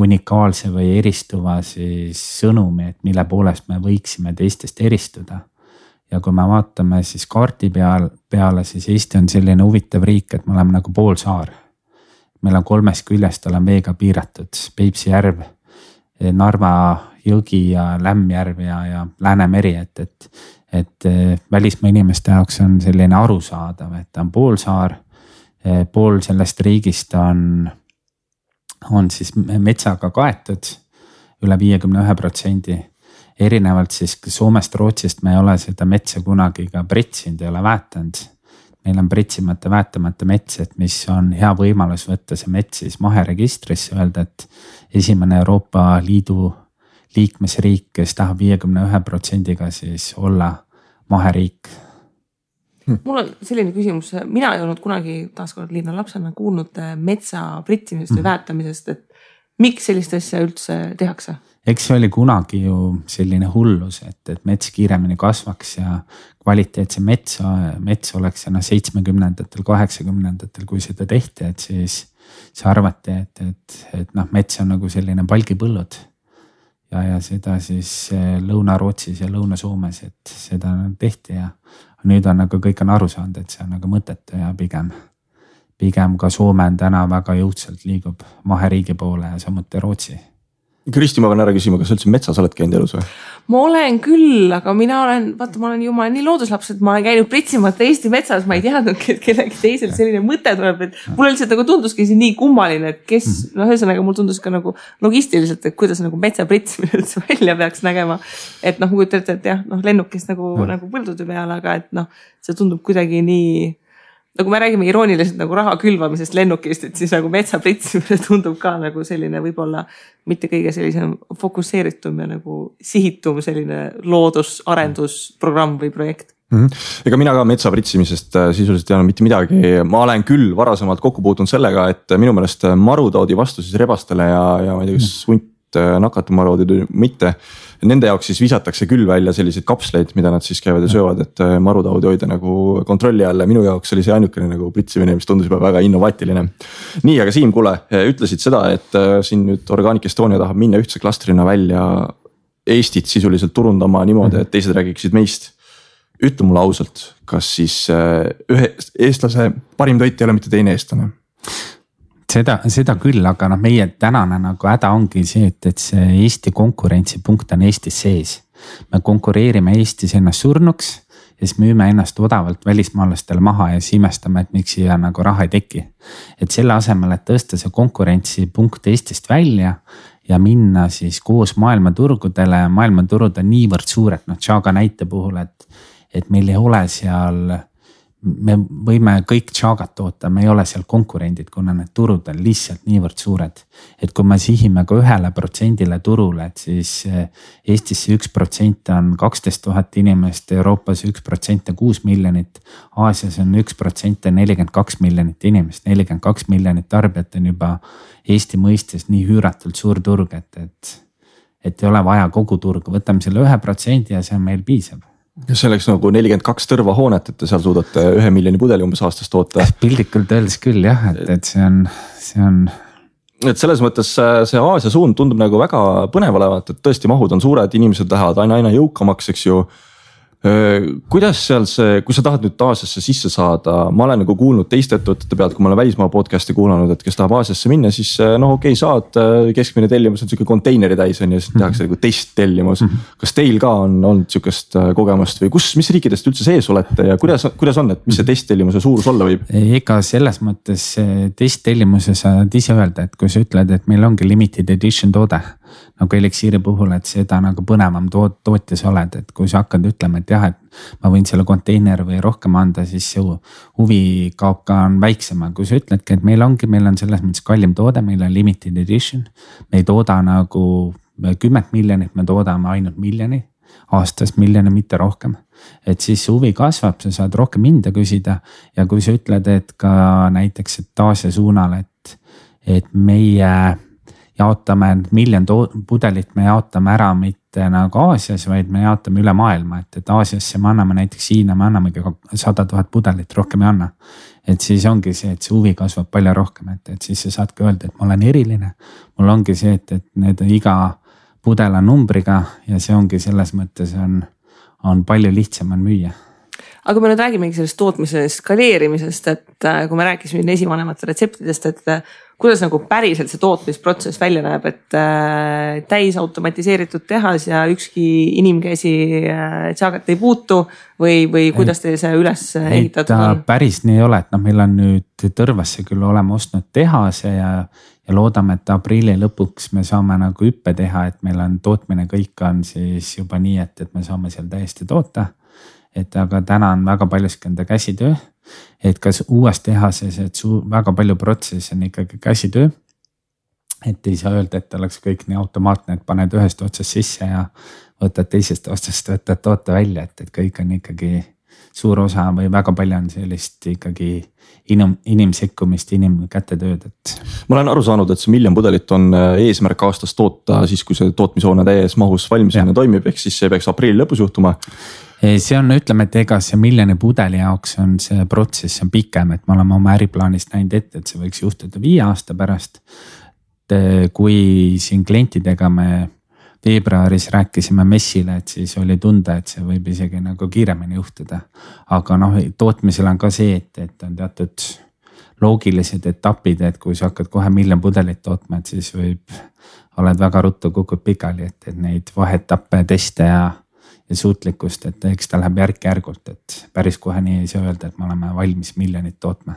unikaalse või eristuva siis sõnumi, et mille poolest me võiksime teistest eristuda. Ja kui me vaatame siis kaardi peale, siis Eesti on selline huvitav riik, et me oleme nagu poolsaar. Meil on 3 küljest olen veega piiratud, Peipsi järv, Narva jõgi ja Lämmjärv ja Läänemeri, et välismaa inimeste jaoks on selline arusaadav, et ta on poolsaar, pool sellest riigist on siis metsaga kaetud üle 51%. Erinevalt siis Soomest, Rootsist me ei ole seda metsa kunagi ka pritsinud, ei ole väetanud. Meil on pritsimata, väetamata mets, et mis on hea võimalus võtta see mets siis maheregistrisse, öelda, et esimene Euroopa Liidu liikmesriik, kes tahab 51%-ga siis olla maheriik. Mul on selline küsimus, mina ei olnud kunagi taaskord linna lapsena kuulnud metsa pritsimisest või väetamisest, et miks sellist asja üldse tehakse? Eks see oli kunagi ju selline hullus, et mets kiiremini kasvaks ja kvaliteetse mets oleks 70-ndatel, 80-ndatel, kui seda tehti, et siis arvati, et mets on nagu selline palgipõllud ja seda siis Lõuna-Rootsis ja Lõuna-Soomes, et seda tehti ja nüüd on nagu kõik on aru saanud, et see on nagu mõttetu ja pigem ka Soome on täna väga jõudsalt liigub maheriigi poole ja samuti Rootsi. Kristi, ma pean ära küsima, kas üldse metsas oled käinud elus või? Ma olen küll, aga ma olen ju nii looduslaps, et ma olen käinud pritsimata Eesti metsas, ma ei teadnud, et kellegi teisel selline mõte tuleb, et mulle lihtsalt nagu tunduski see nii kummaline, et kes, ühesõnaga mul tundus ka nagu logistiliselt, et kuidas nagu metsa pritsimine üldse välja peaks nägema. Et kui ütlete, et jah, lennukist nagu põldude peale, aga et see tundub kuidagi nii, nagu me räägime irooniliselt nagu raha külvamisest lennukist, et siis nagu metsa pritsimine tundub ka nagu selline võib-olla mitte kõige sellisem fokusseeritum ja nagu sihitum selline loodusarendusprogramm või projekt. Ega mina ka metsa pritsimisest sisuliselt ei ole mitte midagi. Ma olen küll varasemalt kokku puutunud sellega, et minu meelest marutaudi vastu siis rebastele ja ma ei tea, kas hunt nakatab marutaudi mitte. Nende jaoks siis visatakse küll välja selliseid kapsleid, mida nad siis käivad ja söövad, et marutaudi hoida nagu kontrolli alla. Minu jaoks oli see ainukene nagu pritsimine, mis tundus juba väga innovaatiline. Nii, aga Siim, kuule, ütlesid seda, et siin nüüd Organic Estonia tahab minna ühtse klastrina välja Eestit sisuliselt turundama niimoodi, et teised räägiksid meist. Ütle mulle ausalt, kas siis ühe eestlase parim toit ei ole mitte teine eestlane? Seda küll, aga meie tänane nagu häda ongi see, et see Eesti konkurentsipunkt on Eestis sees. Me konkureerime Eestis ennast surnuks ja siis müüme ennast odavalt välismaalastele maha ja siis imestame, et miks siia nagu raha ei teki. Et selle asemel, et tõsta see konkurentsipunkt Eestist välja ja minna siis koos maailmaturgudele, maailmaturud on niivõrd suured, Chaga näite puhul, et meil ei ole seal, me võime kõik Chagat toota, me ei ole seal konkurendid, kuna need turud on lihtsalt niivõrd suured. Et kui me sihime ka 1% turule, et siis Eestis 1% on 12 000 inimest, Euroopas 1% 6 miljonit, Aasias on 1% 42 miljonit inimest, 42 miljonit tarbijat on juba Eesti mõistes nii hüüratult suur turg, et ei ole vaja kogu turgu, võtame selle 1% ja see on meil piisab. See oleks nagu 42 tõrva hoonet, et te seal suudate 1 miljoni pudeli umbes aastas toota. Pildikult öeldes küll jah, et see on. Et selles mõttes see Aasia suund tundub nagu väga põnev olevat, et tõesti mahud on suured, inimesed lähevad aina jõukamaks, eks ju. Kuidas seal see, kui sa tahad nüüd Aasiasse sisse saada, ma olen nagu kuulnud teiste ettevõtete pealt, kui ma olen välismaa podcasti kuulanud, et kes tahab Aasiasse minna, siis okei, saad keskmine tellimus on siuke konteineri täis on ja siis tehakse nagu testtellimus. Kas teil ka on olnud siukest kogemust või mis riikidest üldse sees olete ja kuidas on, et mis see testtellimuse suurus olla võib? Ega selles mõttes testtellimuse saad ise öelda, et kui sa ütled, et meil ongi limited edition toode, nagu Elixiiri puhul, et seda nagu põnevam tootjas oled, et kui sa hakkad ütlema, et jah, et ma võin selle konteiner või rohkem anda, siis see huvi kaob ka on väiksem. Kui sa ütledki, et meil on selles mõttes kallim toode, meil on limited edition, me ei tooda nagu 10 miljonit, me toodame ainult miljoni, aastas miljoni, mitte rohkem. Et siis huvi kasvab, sa saad rohkem hinda küsida ja kui sa ütled, et ka näiteks, et Aasia suunal, et meie jaotame 1 miljon pudelit, me jaotame ära mitte nagu Aasias, vaid me jaotame üle maailma, et Aasiasse me anname näiteks Hiina, me annamegi 100 000 pudelit, rohkem ei anna. Et siis ongi see, et see huvi kasvab palju rohkem, et siis sa saadki öelda, et ma olen eriline. Mul ongi see, et need iga pudel on numbriga ja see ongi selles mõttes on palju lihtsam on müüa. Aga kui me nüüd räägimegi sellest tootmise skaleerimisest, et kui me rääkisime esivanemate retseptidest, et kuidas nagu päriselt see tootmisprotsess välja näeb, et täis automatiseeritud tehas ja ükski inimkäsi Chagat ei puutu või kuidas teil see üles ehitatud on? Päris nii ei ole, et meil on nüüd Tõrvasse küll oleme ostnud tehase ja loodame, et aprilli lõpuks me saame nagu hüppe teha, et meil on tootmine kõik on siis juba nii, et me saame seal täiesti toota. Et aga täna on väga paljuski enda käsitöö, et kas uues tehases, et väga palju protsessi on ikkagi käsitöö. Et ei saa öelda, et oleks kõik nii automaatne, et paned ühest otsast sisse ja võtad teisest otsast, võtad toote välja, et kõik on ikkagi suur osa või väga palju on sellist ikkagi inimsekkumist, inimkätetööd. Ma olen aru saanud, et see 1 miljon pudelit on eesmärk aastas toota siis, kui see tootmishoone täies mahus valmisena toimib, ehk siis see peaks aprilli lõpus juhtuma. See on, ütleme, et ega see 1 miljoni pudeli jaoks on see protsess on pikem, et me oleme oma äriplaanist näinud ette, et see võiks juhtuda 5 aasta pärast. Kui siin klientidega me veebruaris rääkisime messile, et siis oli tunda, et see võib isegi nagu kiiremini juhtuda. Aga tootmisel on ka see, et on teatud loogilised etapid, et kui sa hakkad kohe 1 miljon pudelit tootma, et siis oled väga ruttu kukud pikali, et neid vaheetappe, teste ja suutlikkust, et eks ta läheb järk-järgult, et päris kohe nii ei saa öelda, et me oleme valmis 1 miljonit tootma.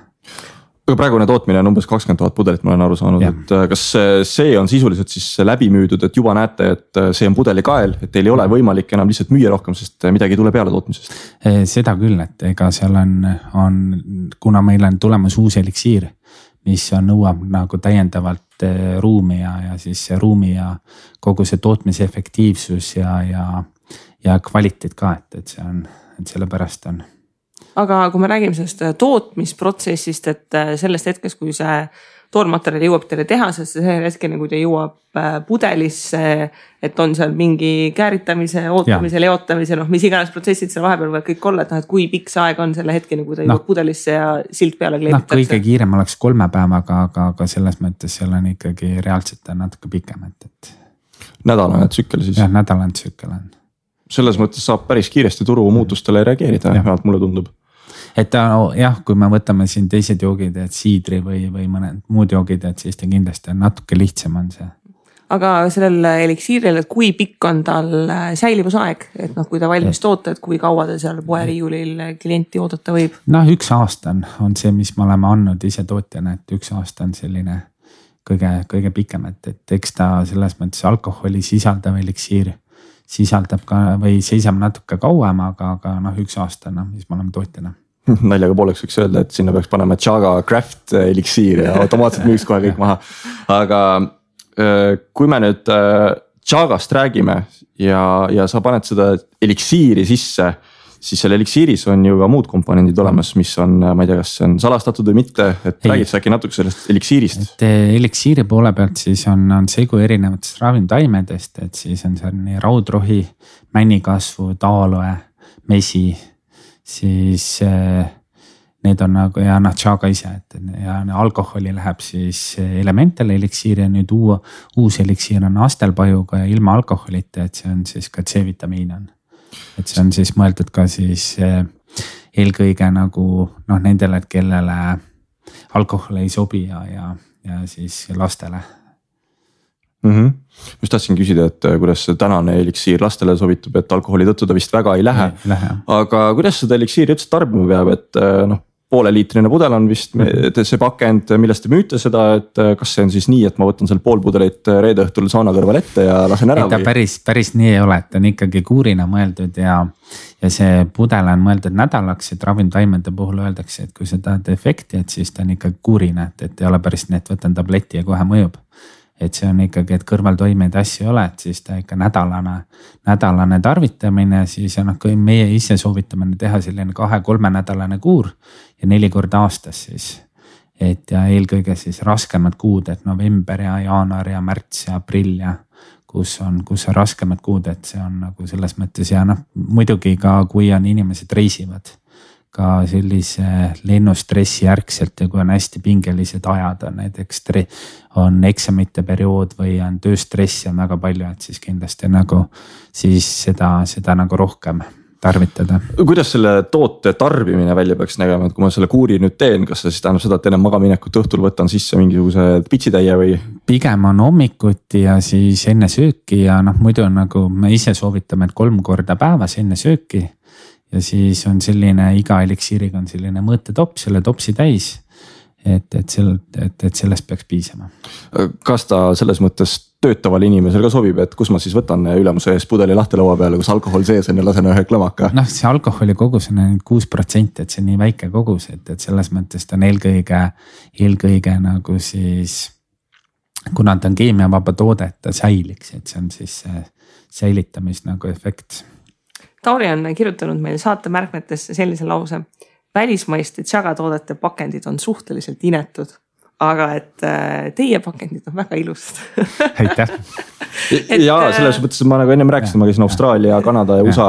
Aga praegune tootmine on umbes 20 000 pudelit, ma olen aru saanud, et kas see on sisuliselt siis läbi müüdud, et juba näete, et see on pudelikael, et teil ei ole võimalik enam lihtsalt müüa rohkem, sest midagi ei tule peale tootmisest? Seda küll, et ega seal on kuna meil on tulemas uus eliksiir, mis nõuab nagu täiendavalt ruumi ja siis ruumi ja kogu see tootmise efektiivsus ja kvaliteet ka, et see on, et sellepärast on. Aga kui me räägime sellest tootmisprotsessist, et sellest hetkest, kui see toormaterjal jõuab teile tehasesse, see hetkeni, kui ta jõuab pudelisse, et on seal mingi kääritamise, ootamise, leotamise, mis iganes protsessid seal vahepeal võivad kõik olla, et kui pikk see aeg on selle hetkeni, kui ta jõuab pudelisse ja silt peale kleebitakse? Kõige kiirem oleks 3 päevaga, aga selles mõttes seal on ikkagi reaalselt natuke pikem. Nädalane tsükkel siis? Jah, nädalane tsükkel on. Selles mõttes saab päris kiiresti turu muutustele reageerida, vähemalt mulle tundub. Et jah, kui me võtame siin teised joogid, et siidri või mõned muud joogid, et siis ta kindlasti on natuke lihtsam on see. Aga sellel eliksiiril, et kui pikk on tal säilivusaeg, et kui ta valmis toota, et kui kaua ta seal poeriiulil klienti oodata võib? 1 aasta on see, mis me oleme andnud ise tootjana, et 1 aasta on selline kõige pikem, et eks ta selles mõttes alkoholi sisaldav eliksiir sisaldab ka või seisab natuke kauem, aga 1 aasta, mis me oleme tootjana. Naljaga pooleks võiks öelda, et sinna peaks panema Chaga Craft eliksiir ja automaatselt müüks kohe kõik maha. Aga kui me nüüd Chagast räägime ja sa paned seda eliksiiri sisse, siis selle eliksiiris on ju ka muud komponendid olemas, mis on, ma ei tea, kas see on salastatud või mitte, et räägid sa äkki natuke sellest eliksiirist? Et eliksiiri poole pealt siis on segu erinevatest ravimtaimedest, et siis on seal nii raudrohi, männikasvu, taaloe, mesi, siis need on nagu ja Chaga ise, et ja alkoholi läheb siis Elemental eliksiir ja nüüd uus eliksiir on astelpajuga ja ilma alkoholita, et see on siis ka C-vitamiin on. Et see on siis mõeldud ka siis eelkõige nagu nendele, kellele alkohol ei sobi ja siis lastele. Just tahtsin küsida, et kuidas see tänane eliksiir lastele sobitub, et alkoholi tõttu ta vist väga ei lähe. Aga kuidas seda eliksiiri üldse tarbima peab, et pooleliitrine pudel on vist see pakend, millest te müüte seda, et kas see on siis nii, et ma võtan seal pool pudelit reede õhtul sauna kõrval ette ja lasen ära? Ta päris nii ei ole, et on ikkagi kuurina mõeldud ja see pudel on mõeldud nädalaks, et ravimtaimede puhul öeldakse, et kui sa tahad efekti, et siis ta on ikkagi kuurina, et ei ole päris nii, et võtan tableti ja kohe mõjub. Et see on ikkagi, et kõrvaltoimeid asju ei ole, et siis ta ikka nädalane tarvitamine, siis kui meie ise soovitame teha selline 2-3 nädalane kuur ja 4 korda aastas siis. et ja eelkõige siis raskemad kuud, et november ja jaanuar ja märts ja aprill ja kus on raskemad kuud, et see on nagu selles mõttes ja noh, muidugi ka kui on inimesed reisivad ka sellise lennustressi järgselt ja kui on hästi pingelised ajad, on näiteks on eksamite periood või on tööstressi on väga palju, et siis kindlasti nagu siis seda nagu rohkem tarvitada. Kuidas selle toote tarbimine välja peaks nägema, et kui ma selle kuuri nüüd teen, kas see siis tähendab seda, et enne magaminekut õhtul võtan sisse mingisuguse pitsitäie või? Pigem on hommikuti ja siis enne sööki ja noh, muidu on nagu me ise soovitame, et 3 korda päevas enne sööki ja siis on selline iga eliksiiriga on selline mõõtetopp, selle topsi täis, et sellest peaks piisama. Kas ta selles mõttes töötavale inimesel ka sobib, et kus ma siis võtan ülemuse ees pudeli lahti laua peale, kus alkohol sees on ja lasen ühe klõmaka? Noh, see alkoholi kogus on 6%, et see on nii väike kogus, et selles mõttes ta on eelkõige nagu siis, kuna ta on keemiavaba toode, et ta säiliks, et see on siis säilitamis nagu efekt. Tauri on kirjutanud meil saate märkmetesse sellise lause. Välismaiste tšagatoodete pakendid on suhteliselt inetud, aga et teie pakendid on väga ilusad. Aitäh. Ja selles mõttes ma nagu ennem rääkisin, ma käisin Austraalia, Kanada ja USA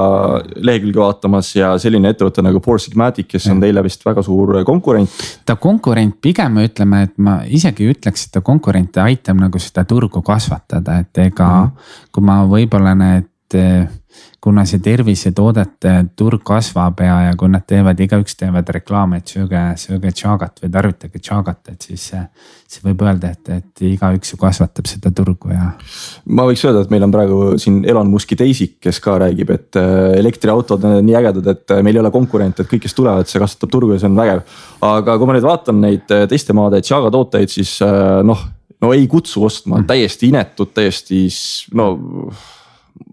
lehekülge vaatamas ja selline ettevõte nagu Four Sigmatic, kes on teile vist väga suur konkurent. Ta konkurent pigem ütleme, et ma isegi ütleks, et ta konkurente aitab nagu seda turgu kasvatada, et ega kui ma võib-olla kuna see tervisetoodete turg kasvab ja kui nad igaüks teevad reklaame, et sööge tšagat või tarvitage tšagat, et siis see võib öelda, et igaüks ju kasvatab seda turgu ja. Ma võiks öelda, et meil on praegu siin Elon Muski teisik, kes ka räägib, et elektriautod on nii ägedad, et meil ei ole konkurent, et kõik, kes tulevad, see kasvatab turgu ja see on vägev. Aga kui ma nüüd vaatan neid teiste maade tšaga tooteid, siis no ei kutsu ostma, täiesti inetud, täiesti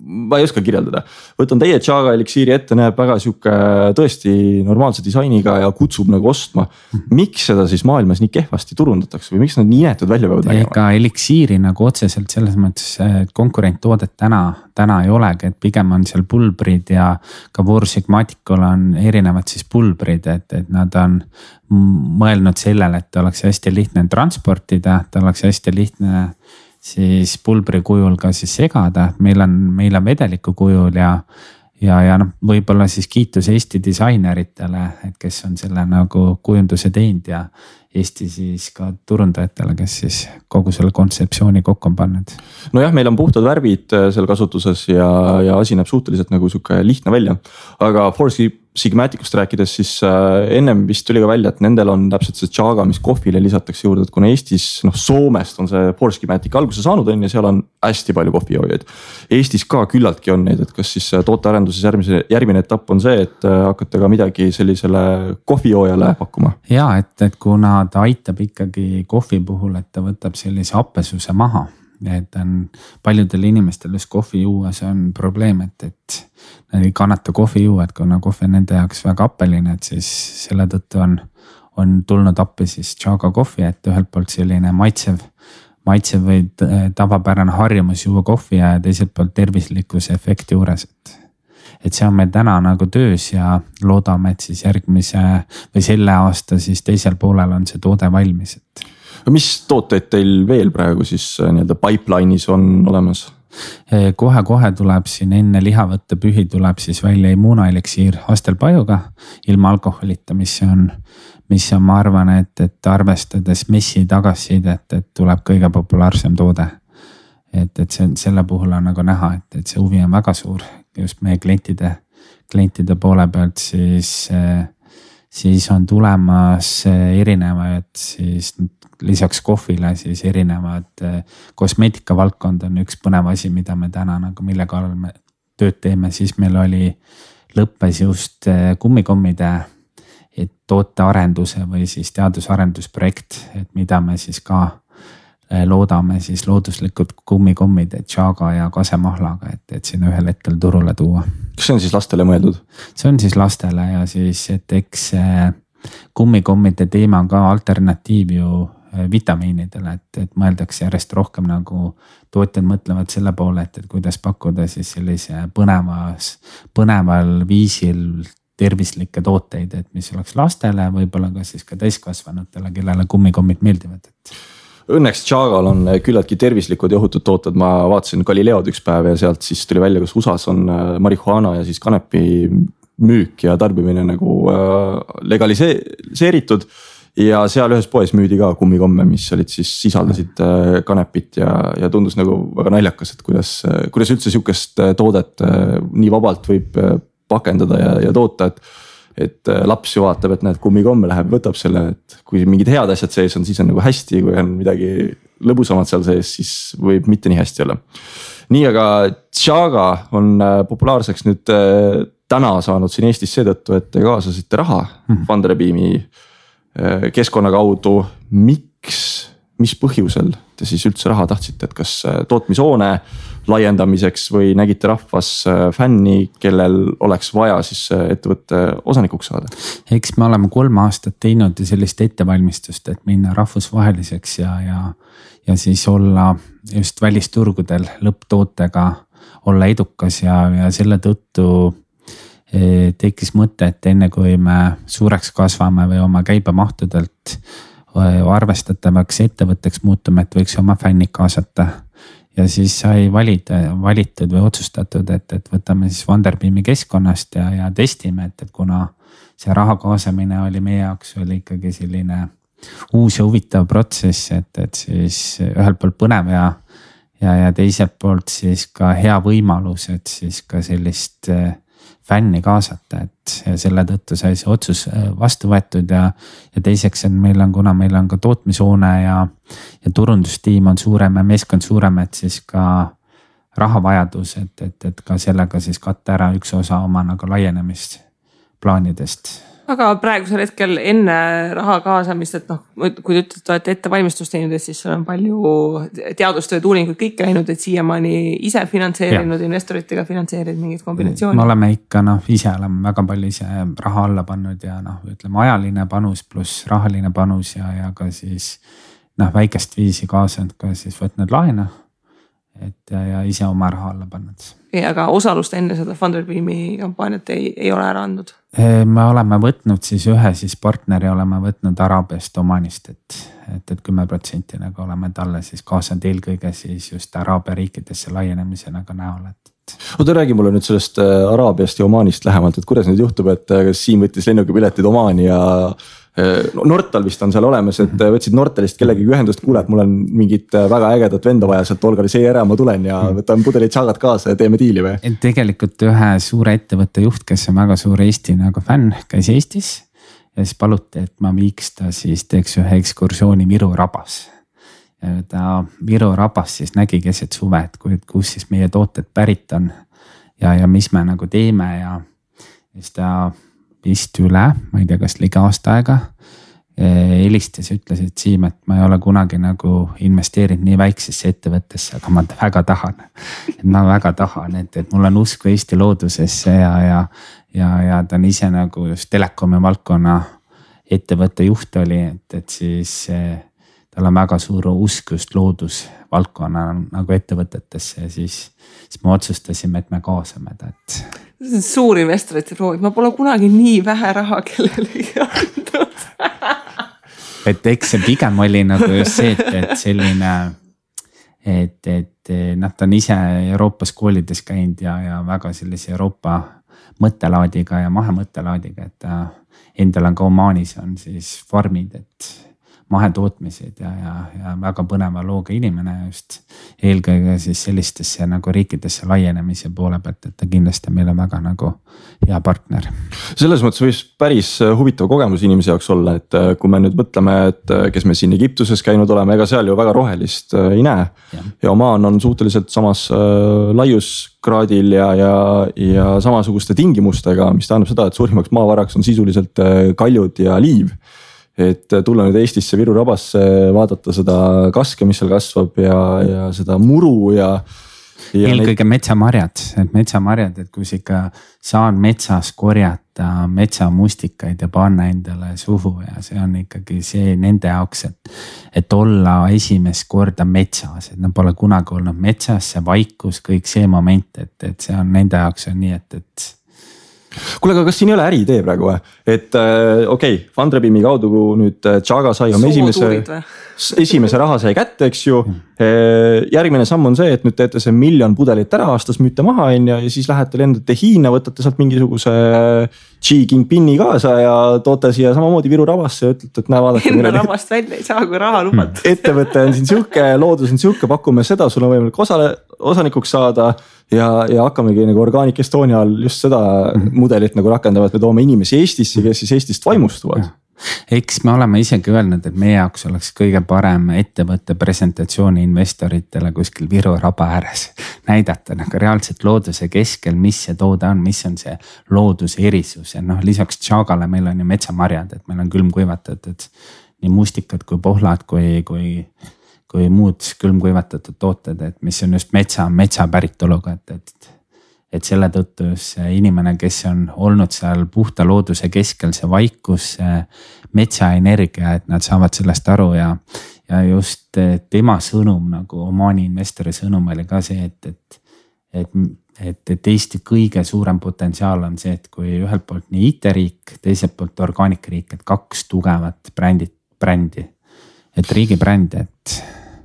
ma ei oska kirjeldada. Võtan teie tšaga eliksiiri ette, näeb väga siuke tõesti normaalse disainiga ja kutsub nagu ostma. Miks seda siis maailmas nii kehvasti turundatakse või miks nad nii inetud välja peavad nägema? Ega eliksiiri nagu otseselt selles mõttes konkurenttoodet täna ei olegi, et pigem on seal pulbrid ja ka Four Sigmaticul on erinevad siis pulbrid, et nad on mõelnud sellele, et oleks hästi lihtne transportida, et oleks hästi lihtne siis pulbri kujul ka siis segada, meil on vedeliku kujul ja noh, võib-olla siis kiitus Eesti disaineritele, et kes on selle nagu kujunduse teinud ja Eesti siis ka turundajatele, kes siis kogu selle kontseptsiooni kokku on pannud. Nojah, meil on puhtad värvid seal kasutuses ja asi näeb suhteliselt nagu siuke lihtne välja, aga Four Sigmaticust rääkides, siis ennem vist tuli ka välja, et nendel on täpselt see tšaga, mis kohvile lisatakse juurde, et kuna Eestis, Soomest on see Four Sigmatic alguse saanud on ja seal on hästi palju kohvijoojaid. Eestis ka küllaltki on neid, et kas siis tootearenduses järgmine etapp on see, et hakkate ka midagi sellisele kohvijoojale pakkuma? Ja, et kuna ta aitab ikkagi kohvi puhul, et ta võtab sellise happesuse maha. Et on paljudel inimestel just kohvi juues on probleem, et nad ei kannata kohvi juua, et kuna kohvi on nende jaoks väga appeline, et siis selle tõttu on tulnud appi siis tšaga kohvi, et ühelt poolt selline maitsev või tavapärane harjumus juua kohvi ja teiselt poolt tervislikkuse efekti juures, et see on meil täna nagu töös ja loodame, et siis järgmise või selle aasta siis teisel poolel on see toode valmis, et mis tooteid teil veel praegu siis nii-öelda pipeline'is on olemas? Kohe tuleb siin enne lihavõttepühi tuleb siis välja immuunoeliksiir Hastelpajuga ilma alkoholita, mis on, ma arvan, et arvestades messi tagasisidet, et tuleb kõige populaarsem toode. Et selle puhul on nagu näha, et see huvi on väga suur just meie klientide poole pealt, siis on tulemas erinevaid siis lisaks kohvile siis erinevad kosmeetika valdkond on üks põnev asi, mida me täna nagu mille kallal me tööd teeme, siis meil lõppes just kummikommide tootearenduse või siis teadusarendusprojekt, et mida me siis ka loodame siis looduslikud kummikommid tšaga ja kasemahlaga, et sinna ühel hetkel turule tuua. Kas see on siis lastele mõeldud? See on siis lastele ja siis, et eks kummikommide teema on ka alternatiiv ju vitamiinidele, et mõeldakse järjest rohkem nagu tootjad mõtlevad selle poole, et kuidas pakkuda siis sellise põneval viisil tervislikke tooteid, et mis oleks lastele, võib-olla ka siis ka täiskasvanutele, kellele kummikommid meeldivad, et. Õnneks Chagal on küllaltki tervislikud ja ohutud tooted, ma vaatasin Galileod üks päev ja sealt siis tuli välja, kus USAs on marihuana ja siis kanepi müük ja tarbimine nagu legaliseeritud. Ja seal ühes poes müüdi ka kummikomme, mis olid siis sisaldasid kanepit ja tundus nagu väga naljakas, et kuidas üldse sihukest toodet nii vabalt võib pakendada ja toota, et laps ju vaatab, et näed kummikomme läheb, võtab selle, et kui mingid head asjad sees on, siis on nagu hästi, kui on midagi lõbusamad seal sees, siis võib mitte nii hästi olla. Nii, aga Chaga on populaarseks nüüd täna saanud siin Eestis seetõttu, et te kaasasite raha Funderbeami keskkonna kaudu. Miks, mis põhjusel te siis üldse raha tahtsite, et kas tootmishoone laiendamiseks või nägite rahvas fänni, kellel oleks vaja siis ettevõtte osanikuks saada? Eks me oleme 3 aastat teinud sellist ettevalmistust, et minna rahvusvaheliseks ja siis olla just välisturgudel lõpptootega, olla edukas ja selle tõttu tekkis mõte, et enne kui me suureks kasvame või oma käibemahtudelt arvestatavaks ettevõtteks muutume, et võiks oma fännid kaasata. Ja siis sai valitud või otsustatud, et võtame siis Funderbeami keskkonnast ja testime, et kuna see raha kaasamine oli meie jaoks oli ikkagi selline uus ja huvitav protsess, et siis ühelt poolt põnev ja teiselt poolt siis ka hea võimalus, et siis ka sellist fänni kaasata, et selle tõttu sai see otsus vastu võetud ja teiseks, et kuna meil on ka tootmishoone ja turundustiim on suurem ja meeskond suurem, et siis ka rahavajadus, et ka sellega siis katta ära üks osa oma nagu laienemisplaanidest. Aga praegusel hetkel enne raha kaasamist, et kui te ütlete, et olete ettevalmistust teinud, et siis on palju teadustööd, uuringuid kõik käinud, et siiamaani ise finantseerinud, investoritega finantseerinud mingid kombinatsioonid. Me oleme ikka ise oleme väga palju ise raha alla pannud ja ütleme ajaline panus pluss rahaline panus ja ka siis väikest viisi kaasanud ka siis võtnud laena. Ja ise oma raha alla pannud. Aga osalust enne seda Funderbeami kampaaniat ei ole ära andnud? Me oleme võtnud siis ühe partneri oleme võtnud Araabiast Omanist, et 10% nagu oleme talle siis kaasanud eelkõige siis just Araabia riikidesse laienemise nagu näol. Oota, räägi mulle nüüd sellest Araabiast ja Omanist lähemalt, et kuidas nüüd juhtub, et Siim võttis lennukipiletid Omani ja Nortal vist on seal olemas, et võtsid Nortalist kellegi ühendust, kuule, et mul on mingit väga ägedat venda vaja sealt Olgari ära, ma tulen ja võtan pudelid Chagat kaasa ja teeme diili või? Tegelikult ühe suure ettevõtte juht, kes on väga suur Eesti nagu fänn, käis Eestis ja siis paluti, et ma viiks ta siis teeks ühe ekskursiooni Viru rabas. Ja ta Viru rabas siis nägi keset suve, et kus siis meie tooted pärit on ja mis me nagu teeme ja siis ta vist üle, ma ei tea, kas ligi aasta aega helistas ja ütles, et Siim, et ma ei ole kunagi nagu investeerinud nii väiksesse ettevõttesse, aga ma väga tahan. Ma väga tahan, et mul on usku Eesti loodusesse ja ta on ise nagu just telekomi valdkonna ettevõtte juht oli, et siis tal on väga suur usk just loodusvaldkonna nagu ettevõtetesse ja siis me otsustasime, et me kaasame ta, suur investorite proovid, ma pole kunagi nii vähe raha kellelegi andnud. Et eks see pigem oli nagu just see, et selline, et ta on ise Euroopas koolides käinud ja väga sellise Euroopa mõttelaadiga ja mahemõttelaadiga, et endal on ka Omanis on siis farmid, et mahetootmised ja väga põneva looga inimene just eelkõige siis sellistesse nagu riikidesse laienemise poole pealt, et ta kindlasti meile väga nagu hea partner. Selles mõttes võis päris huvitav kogemus inimese jaoks olla, et kui me nüüd mõtleme, et kes me siin Egiptuses käinud oleme, ega seal ju väga rohelist ei näe ja Oman on suhteliselt samas laiuskraadil ja samasuguste tingimustega, mis tähendab seda, et suurimaks maavaraks on sisuliselt kaljud ja liiv. Et tulla nüüd Eestisse Viru rabasse, vaadata seda kaske, mis seal kasvab ja seda muru ja eelkõige metsamarjad, et kus ikka saan metsas korjata metsamustikaid ja panna endale suhu ja see on ikkagi see nende jaoks, et olla esimest korda metsas, et nad pole kunagi olnud metsas, see vaikus, kõik see moment, et see on nende jaoks on nii, et kuule, aga kas siin ei ole äriidee praegu või? Et okei, Fundrabeami kaudu nüüd Chaga sai oma esimese raha sai kätte, eks ju. Järgmine samm on see, et nüüd teete see 1 miljon pudelit ära aastas, müüte maha ja siis lähete lendate Hiina, võtate sealt mingisuguse Xi Jinpingi kaasa ja toote siia samamoodi Viru Ravasse ja ütlete, et näe vaadake. Enda Ravast välja ei saa, kui raha lubat. Ettevõte on siin siuke, loodus on siuke, pakume seda, sul on võimalik osanikuks saada ja hakkamegi nagu Organic Estonia all just seda mudelit nagu rakendavad, me toome inimesi Eestisse, kes siis Eestist vaimustuvad. Eks me oleme isegi öelnud, et meie jaoks oleks kõige parem ettevõtte presentatsiooni investoritele kuskil Viru raba ääres näidata nagu reaalselt looduse keskel, mis see toode on, mis on see looduse erisus ja lisaks Chagale meil on ju metsamarjad, et meil on külmkuivatatud nii mustikad kui pohlad kui muud külmkuivatatud tooted, et mis on just metsa päritoluga, et selle tõttu see inimene, kes on olnud seal puhta looduse keskel, see vaikus, see metsaenergia, et nad saavad sellest aru ja just tema sõnum nagu Omaani investori sõnum oli ka see, et Eesti kõige suurem potentsiaal on see, et kui ühelt poolt nii IT-riik, teiselt poolt Organic riik, et 2 tugevat brändi, et riigi bränd, et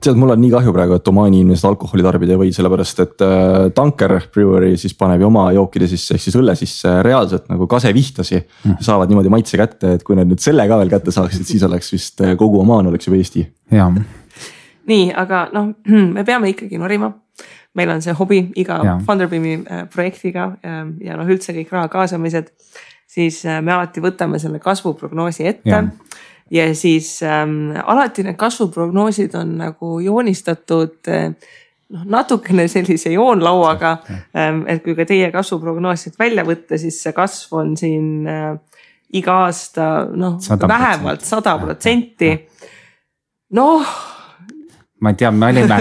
tead, mul on nii kahju praegu, et Omaani inimesed alkoholi tarbida ei või, sellepärast et Tanker Brewery siis paneb ju oma jookide sisse, ehk siis õlle sisse reaalselt nagu kasevihtasi. Saavad niimoodi maitse kätte, et kui need nüüd selle ka veel kätte saaksid, siis oleks vist kogu Omaan oleks juba Eesti. Ja. Nii, aga me peame ikkagi norima. Meil on see hobi iga Fundrabeami projektiga ja üldse kõik raha kaasamised, siis me alati võtame selle kasvuprognoosi ette. Ja. Ja siis alati need kasvuprognoosid on nagu joonistatud natukene sellise joonlauaga, et kui ka teie kasvuprognoosid välja võtta, siis see kasv on siin iga aasta 100%. Vähemalt 100%. Ma ei tea, me olime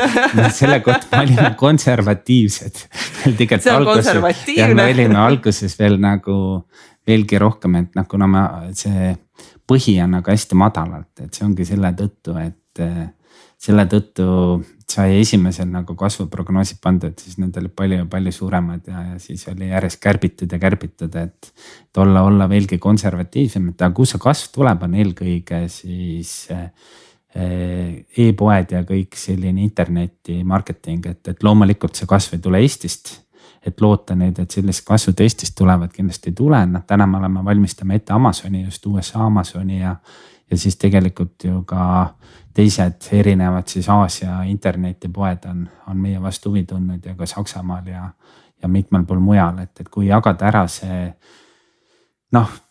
selle kohta, me olime konservatiivsed. See on konservatiivne. Ja me olime alguses veel nagu veelgi rohkem, et kuna see põhi on nagu hästi madalalt, et see ongi selle tõttu, et selle tõttu sai esimesel nagu kasvuprognoosid pandud, siis need olid palju suuremad ja siis oli järjest kärbitud, et olla veelgi konservatiivsem, et kus see kasv tuleb, on eelkõige siis e-poed ja kõik selline interneti marketing, et loomulikult see kasv ei tule Eestist. Et loota nüüd, et sellist kasvu Eestist tulevad kindlasti ei tule. Täna me oleme valmistame ette Amazoni, just USA Amazoni ja siis tegelikult ju ka teised erinevad siis Aasia internetipoed on meie vastu huvi tundnud ja ka Saksamaal ja mitmel pool mujal, et kui jagada ära see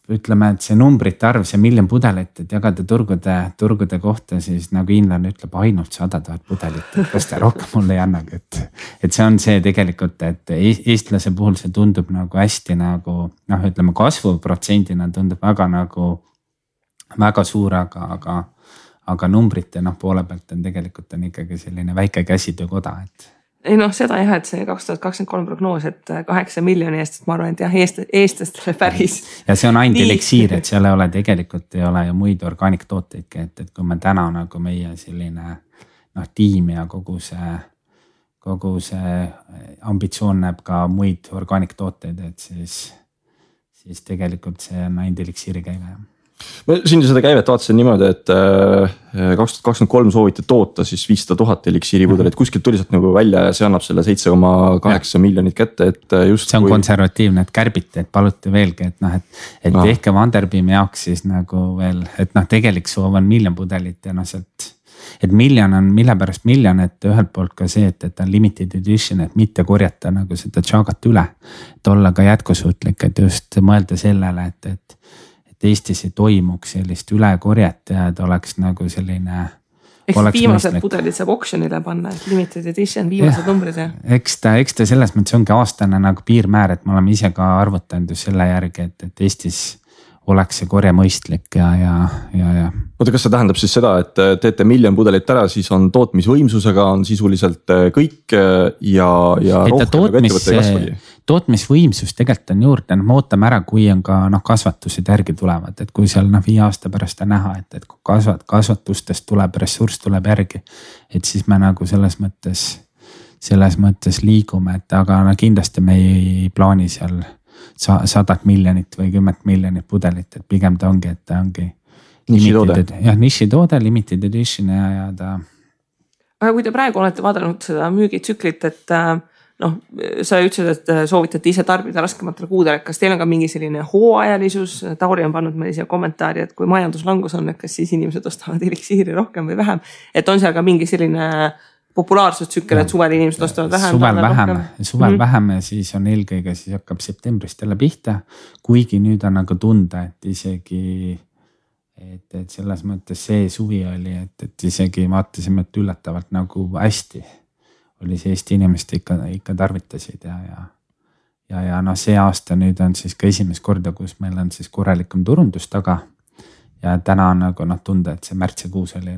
ütleme, et see numbrite arv, see 1 miljon pudelit, et jagada turgude kohta, siis nagu hiinlane ütleb ainult 100 000 pudelit, et kas ta rohkem mulle ei annagi, et see on see tegelikult, et eestlase puhul see tundub nagu hästi nagu ütleme kasvuprotsendina tundub väga suur, aga numbrite poole pealt on tegelikult on ikkagi selline väike käsitöökoda, et ei seda jah, et see 2023 prognoos, et 8 miljoni eest, et ma arvan, et jah, eestlastele päris. Ja see on ainult eliksiir, et seal ei ole ju muid organic tooteidki, et kui me täna nagu meie selline tiim ja kogu see ambitsioon näeb ka muid organic tooteid, et siis tegelikult see on ainult eliksiiri käive. Ma siin seda käivet vaatasin niimoodi, et 2023 sooviti toota siis 500 000 eliksiiripudelit, kuskilt tuli sealt nagu välja ja see annab selle 7,8 miljonit kätte, et just see on konservatiivne, et kärbiti, et paluti veelgi, et tehke Fundrabeami jaoks siis nagu veel, et tegelik soov on 1 miljon pudelit ja sealt, et miljon on, mille pärast miljon, et ühelt poolt ka see, et on limited edition, et mitte korjata nagu seda Chagat üle, et olla ka jätkusuutlik, et just mõelda sellele, et Eestis ei toimuks sellist ülekorjet ja et oleks nagu selline. Eks viimased pudelid saab auctionile panna, et limited edition, viimased numbrid. Eks ta selles mõttes ongi aastane nagu piirmäär, et me oleme ise ka arvutanud selle järgi, et Eestis oleks see korje mõistlik ja. Oota, kas see tähendab siis seda, et teete 1 miljon pudelit ära, siis on tootmisvõimsusega on sisuliselt kõik ja rohkem ettevõtte kasvagi? Tootmisvõimsus tegelikult on juurde, me ootame ära, kui on ka kasvatused järgi tulevad, et kui seal 5 aasta pärast on näha, et kui kasvatustest tuleb, ressurss tuleb järgi, et siis me nagu selles mõttes liigume, et aga kindlasti me ei plaani seal 100 miljonit või 10 miljonit pudelit, et pigem ta ongi, et ta ongi nišitoode, limited edition ja ta. Aga kui te praegu olete vaadanud seda müügitsüklit, et noh, sa ütlesid, et soovitate ise tarbida raskematel kuudel, kas teil on ka mingi selline hooajalisus? Tauri on pannud meile siia kommentaari, et kui majanduslangus on, et kas siis inimesed ostavad eliksiiri rohkem või vähem, et on seal ka mingi selline populaarsustsükkel, et suvel inimesed ostavad vähem. Suvel vähem ja siis on eelkõige, siis hakkab septembrist jälle pihta, kuigi nüüd on nagu tunda, et isegi et selles mõttes see suvi oli, et isegi vaatasime, et üllatavalt nagu hästi oli see Eesti inimest ikka tarvitasid ja noh, see aasta nüüd on siis ka esimest korda, kus meil on siis korralikum turundus taga ja täna on nagu noh tunda, et see märtsikuus oli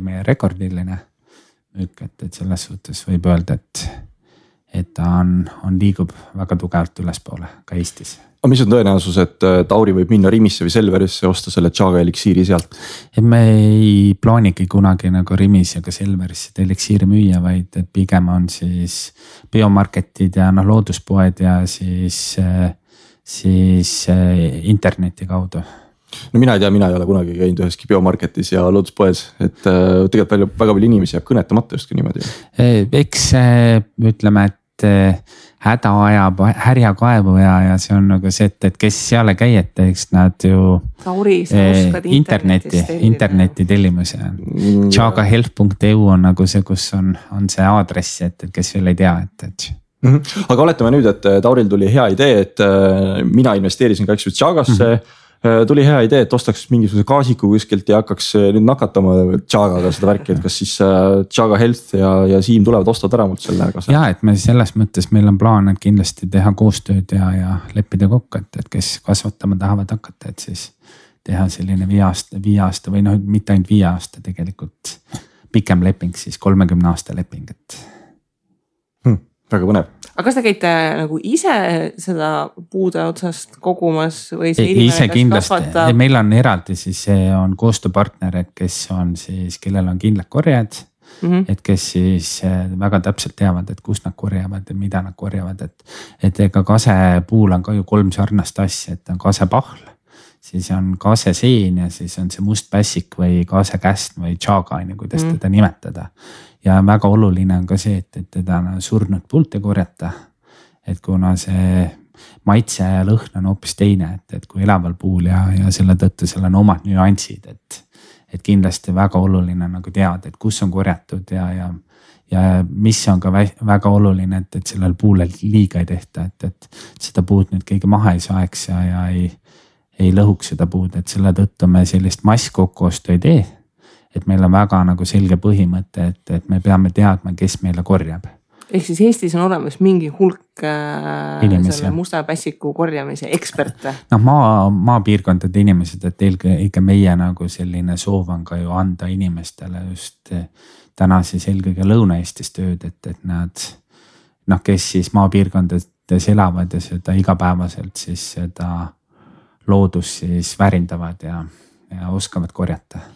meie rekordiline müük, et selles suhtes võib öelda, et ta on liigub väga tugevalt ülespoole ka Eestis. Aga mis on tõenäosus, et Tauri võib minna Rimisse või Selverisse osta selle Chaga eliksiiri sealt? Me ei plaanigi kunagi nagu Rimis ja ka Selverisse eliksiiri müüa, vaid et pigem on siis biomarketid ja looduspoed ja siis interneti kaudu. No mina ei tea, mina ei ole kunagi käinud üheski biomarketis ja looduspoes, et tegelikult väga palju inimesi jääb kõnetamata just niimoodi. Eks ütleme, et häda ajab härja kaevu ja see on nagu see, et kes seal ei käi, et eks nad ju Tauri, sa oskad interneti tellimus ja chagahealth.eu on nagu see, kus on see aadress, et kes veel ei tea, et. Aga oletame nüüd, et Tauril tuli hea idee, et mina investeerisin ka eks Chagasse. Tuli hea idee, et ostaks mingisuguse gaasiku kuskilt ja hakkaks nüüd nakatama Chagaga seda värki, et kas siis Chaga Health ja Siim tulevad ostavad ära mult selle kasa? Ja, et me selles mõttes meil on plaan, et kindlasti teha koostööd ja leppida kokku, et kes kasvatama tahavad hakata, et siis teha selline 5 aasta või mitte ainult 5 aasta tegelikult pikem leping, siis 30 aasta leping, et. Väga põnev. Aga kas te käite nagu ise seda puude otsast kogumas või see ise kindlasti, meil on eraldi siis on koostööpartner, et kes on siis, kellel on kindlad korjad, et kes siis väga täpselt teavad, et kus nad korjavad ja mida nad korjavad, et ega kasepuul on ka ju 3 sarnast asja, et on kasepahl, siis on kaseseen ja siis on see must pässik või kasekäst või chaga, kuidas teda nimetada. Ja väga oluline on ka see, et teda surnud puult ei korjata, et kuna see maitse ja lõhn on hoopis teine, et kui elaval puul ja selle tõttu seal on omad nüansid, et kindlasti väga oluline nagu teada, et kus on korjatud ja mis on ka väga oluline, et sellel puulel liiga ei tehta, et seda puud nüüd keegi maha ei saeks ja ei lõhuks seda puud, et selle tõttu me sellist masskokkuostu ei tee. Et meil on väga nagu selge põhimõte, et me peame teadma, kes meile korjab. Ehk siis Eestis on olemas mingi hulk selle musta pässiku korjamise eksperte. Maapiirkondade inimesed, et ikka meie nagu selline soov on ka ju anda inimestele just täna siis eelkõige Lõuna-Eestis tööd, et nad, kes siis maapiirkondades elavad ja seda igapäevaselt siis seda loodust siis väärindavad ja oskavad korjata.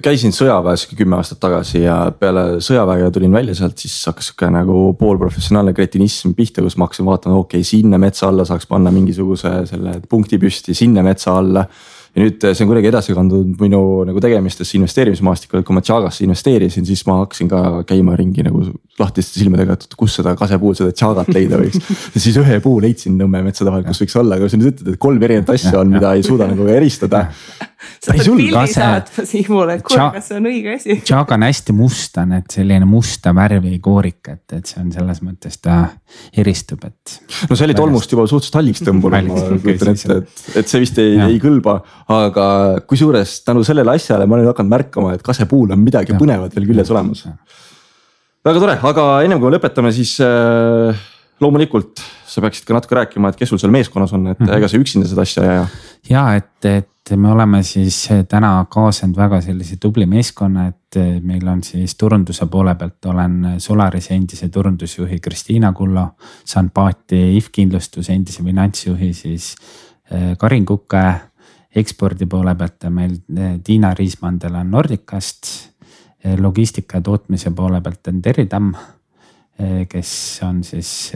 Käisin sõjaväes 10 aastat tagasi ja peale sõjaväega tulin välja sealt, siis hakkas nagu poolprofessionaalne kretinism pihta, kus ma hakkasin vaatama, sinna metsa alla saaks panna mingisuguse selle punkti püsti, sinna metsa alla. Ja nüüd see on kuidagi edasi kandunud minu nagu tegemistesse investeerimismaastikul, et kui ma Chagasse investeerisin, siis ma hakkasin ka käima ringi nagu lahtiste silmadega, et kus seda kasepuul, seda Chagat leida võiks. Ja siis ühe puu leidsin Nõmme metsade vahel, kus võiks olla, aga kui sa nüüd ütled, et 3 erinevat asja on, mida ei suuda nagu eristada. Sa pead pildi saatma Siimule, et kas see on õige asi. Chaga on hästi musta, et selline musta värvi koorik, et see on selles mõttes ta eristub, et. No see oli tolmust juba suhteliselt halliks tõmbunud, et see vist ei kõlba, aga kui suures tänu sellele asjale ma olen hakanud märkama, et kasepuul on midagi põnevat veel küljes olemas. Väga tore, aga ennem kui me lõpetame, siis loomulikult sa peaksid ka natuke rääkima, et kes sul seal meeskonnas on, et ega sa üksinda seda asja ja. Ja, et me oleme siis täna kaasanud väga sellise tubli meeskonna, et meil on siis turunduse poole pealt olen Solarise endise turundusjuhi Kristiina Kullo, saan paati IF-kindlustuse endise finantsjuhi siis Karin Kukke, ekspordi poole pealt meil Tiina Riismandel on Nordicast, logistika ja tootmise poole pealt on Terri Tamm, kes on siis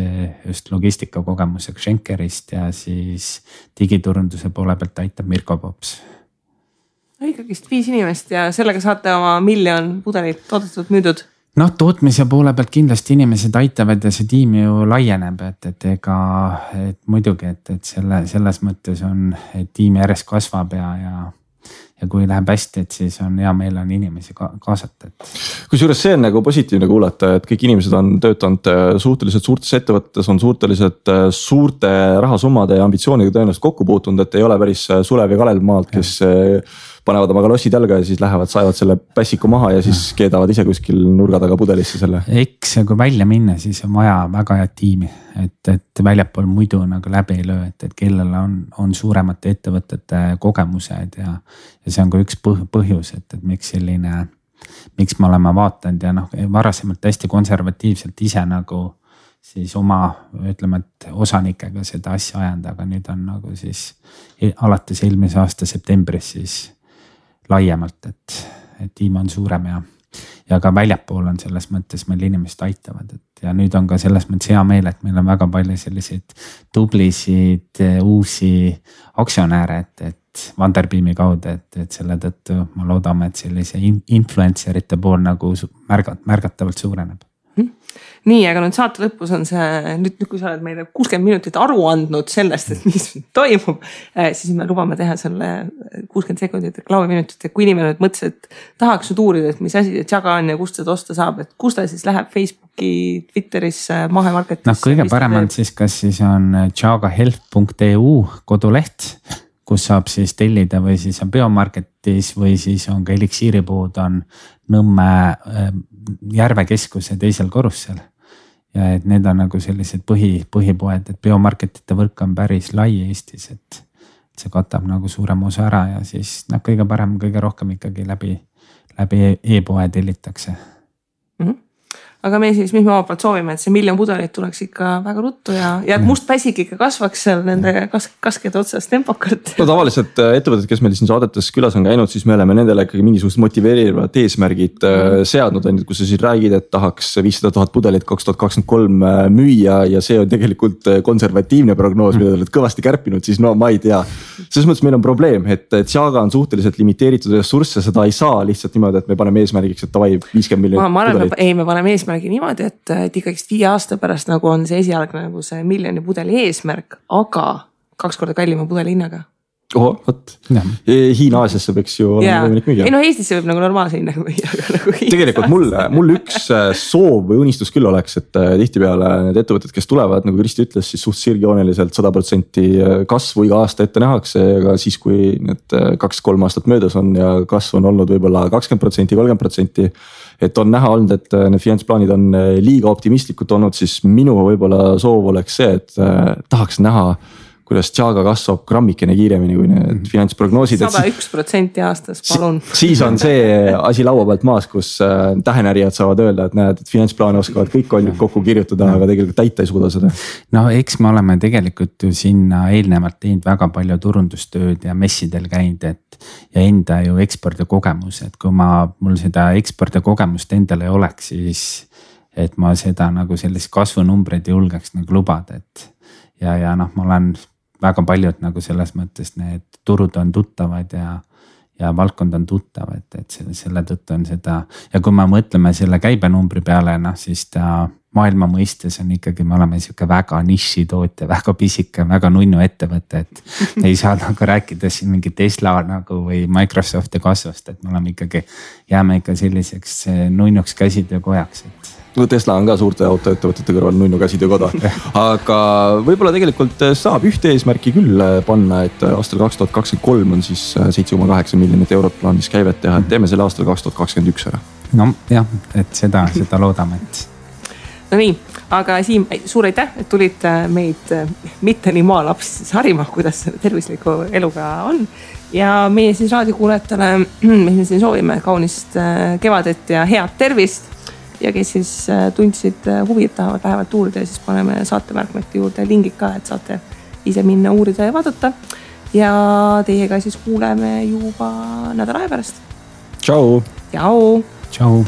just logistikakogemusega Schenkerist ja siis digiturunduse poole pealt aitab Mirko Pops. Ikkagist 5 inimest ja sellega saate oma 1 miljon pudelit toodetud müüdud. Noh, tootmise poole pealt kindlasti inimesed aitavad ja see tiim ju laieneb, et ega muidugi, et selles mõttes on, et tiim järjest kasvab ja kui läheb hästi, et siis on hea meel on inimesi kaasata. Kusjuures see on nagu positiivne kuulata, et kõik inimesed on töötanud suhteliselt suurtes ettevõttes, on suhteliselt suurte rahasummade ja ambitsiooniga tõenäoliselt kokku puutunud, et ei ole päris Sulev ja Kalev maalt, kes panevad oma kalossid jalga ja siis lähevad, saevad selle pässiku maha ja siis keedavad ise kuskil nurga taga pudelisse selle. Eks kui välja minna, siis on vaja väga head tiimi, et väljapool muidu nagu läbi ei löö, et kellel on suuremate ettevõtete kogemused ja see on ka üks põhjus, et miks me oleme vaatanud ja varasemalt hästi konservatiivselt ise nagu siis oma, ütleme, et osanikega seda asja ajanud, aga nüüd on nagu siis alates eelmise aasta septembris siis laiemalt, et tiim on suurem ja ka väljapool on selles mõttes meil inimesed aitavad, et ja nüüd on ka selles mõttes hea meel, et meil on väga palju selliseid tublisid uusi aktsionääre, et Funderbeami kaudu, et selle tõttu ma loodame, et sellise influencerite pool nagu märgatavalt suureneb. Nii, aga nüüd saate lõpus on see, nüüd kui sa oled meile 60 minutit aru andnud sellest, et mis toimub, siis me lubame teha selle 60 sekundit reklaamiminutit, et kui inimene nüüd mõtles, et tahaks nüüd uurida, et mis asi see Chaga on ja kust seda osta saab, et kus ta siis läheb Facebooki, Twitterisse, Mahemarketisse? Kõige parem on siis, kas siis on chagahealth.eu koduleht, kus saab siis tellida või siis on Biomarketis või siis on ka Eliksiiripood on Nõmme Järvekeskuse 2. korrusel. Ja et need on nagu sellised põhipoed, et Biomarketite võrk on päris lai Eestis, et see katab nagu suurem osa ära ja siis kõige parem, kõige rohkem ikkagi läbi e-poe tellitakse. Aga me siis, mis me omalt poolt soovime, et see 1 miljon pudelit tuleks ikka väga ruttu ja et must päsik ikka kasvaks seal nende kaskede otsas tempokalt. No tavaliselt ettevõtted, kes meil siin saadetes külas on käinud, siis me oleme nendele ikkagi mingisugused motiveerivad eesmärgid seadnud, kus sa siis räägid, et tahaks 500 000 pudelit 2023 müüa ja see on tegelikult konservatiivne prognoos, mida oled kõvasti kärpinud, siis no ma ei tea. Selles mõttes meil on probleem, et Chaga on suhteliselt limiteeritud ressursse, seda ei saa lihtsalt niimoodi, et me paneme eesmärgiks, et davai 50 miljonit pudelit. Ei, me paneme eesmärgi niimoodi, et ikkagist 5 aasta pärast nagu on see esialgne nagu see 1 miljoni pudeli eesmärk, aga 2 korda kallima pudeli hinnaga. Oho, võt. Hiina-Aasiasse võiks ju olla võimalik müüa. Ei no Eestisse võib nagu normaalse hinnaga müüa. Nagu tegelikult mul üks soov või unistus küll oleks, et tihtipeale need ettevõtted, kes tulevad, nagu Kristi ütles, siis suht sirgjooneliselt 100% kasvu iga aasta ette nähakse, aga siis kui need 2-3 aastat möödas on ja kasv on olnud võib-olla 20%, 30%, et on näha olnud, et need finantsplaanid on liiga optimistlikud olnud, siis minu võib-olla soov oleks see, et tahaks näha, kuidas Chaga kasvab grammikene kiiremini kui need finantsprognoosid. 101% aastas, palun. Siis on see asi laua pealt maas, kus tähenärijad saavad öelda, et näed, et finantsplaane oskavad kõik on kokku kirjutada, aga tegelikult täita ei suuda seda. No eks me oleme tegelikult ju sinna eelnevalt teinud väga palju turundustööd ja messidel käinud, ja enda ju ekspordikogemus, et kui mul seda ekspordikogemust endal ei oleks, siis et ma seda nagu sellist kasvunumbreid julgeks nagu lubada, et ja ma olen väga paljud nagu selles mõttes need turud on tuttavad ja valdkond on tuttav, et selle tõttu on seda ja kui me mõtleme selle käibenumbri peale, siis ta maailma mõistes on ikkagi, me oleme siuke väga nišitootja, väga pisike, väga nunnu ettevõte, et ei saa nagu rääkida siin mingi Tesla nagu või Microsofti kasvust, et me oleme ikkagi, jääme ikka selliseks nunnuks käsitöökojaks, et no Tesla on ka suurte autoettevõtete kõrval nunnu käsitöökoda, aga võib-olla tegelikult saab ühte eesmärki küll panna, et aastal 2023 on siis 7,8 miljonit eurot plaanis käivet teha, et teeme selle aastal 2021 ära. No jah, et seda loodame, et. No nii, aga Siim, suur aitäh, et tulid meid mitte nii maalapsi siis harima, kuidas tervisliku eluga on. Ja meie siis raadiokuulajatele, me siin soovime kaunist kevadet ja head tervist. Ja kes siis tundsid huvi, et tahavad lähevalt uurida ja siis paneme saatemärkmete juurde lingid ka, et saate ise minna uurida ja vaadata. Ja teiega siis kuuleme juba nädala aja pärast. Tšau! Tšau! Tšau!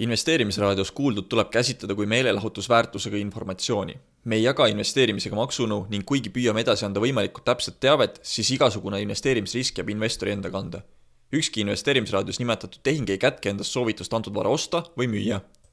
Investeerimisraadios kuuldud tuleb käsitleda kui meelelahutusväärtusega informatsiooni. Me ei jaga investeerimisega maksunu ning kuigi püüame edasi anda võimalikult täpset teavet, siis igasugune investeerimisrisk jääb investori enda kanda. Ükski investeerimisraadios nimetatud tehing ei kätke endast soovitust antud vara osta või müüa.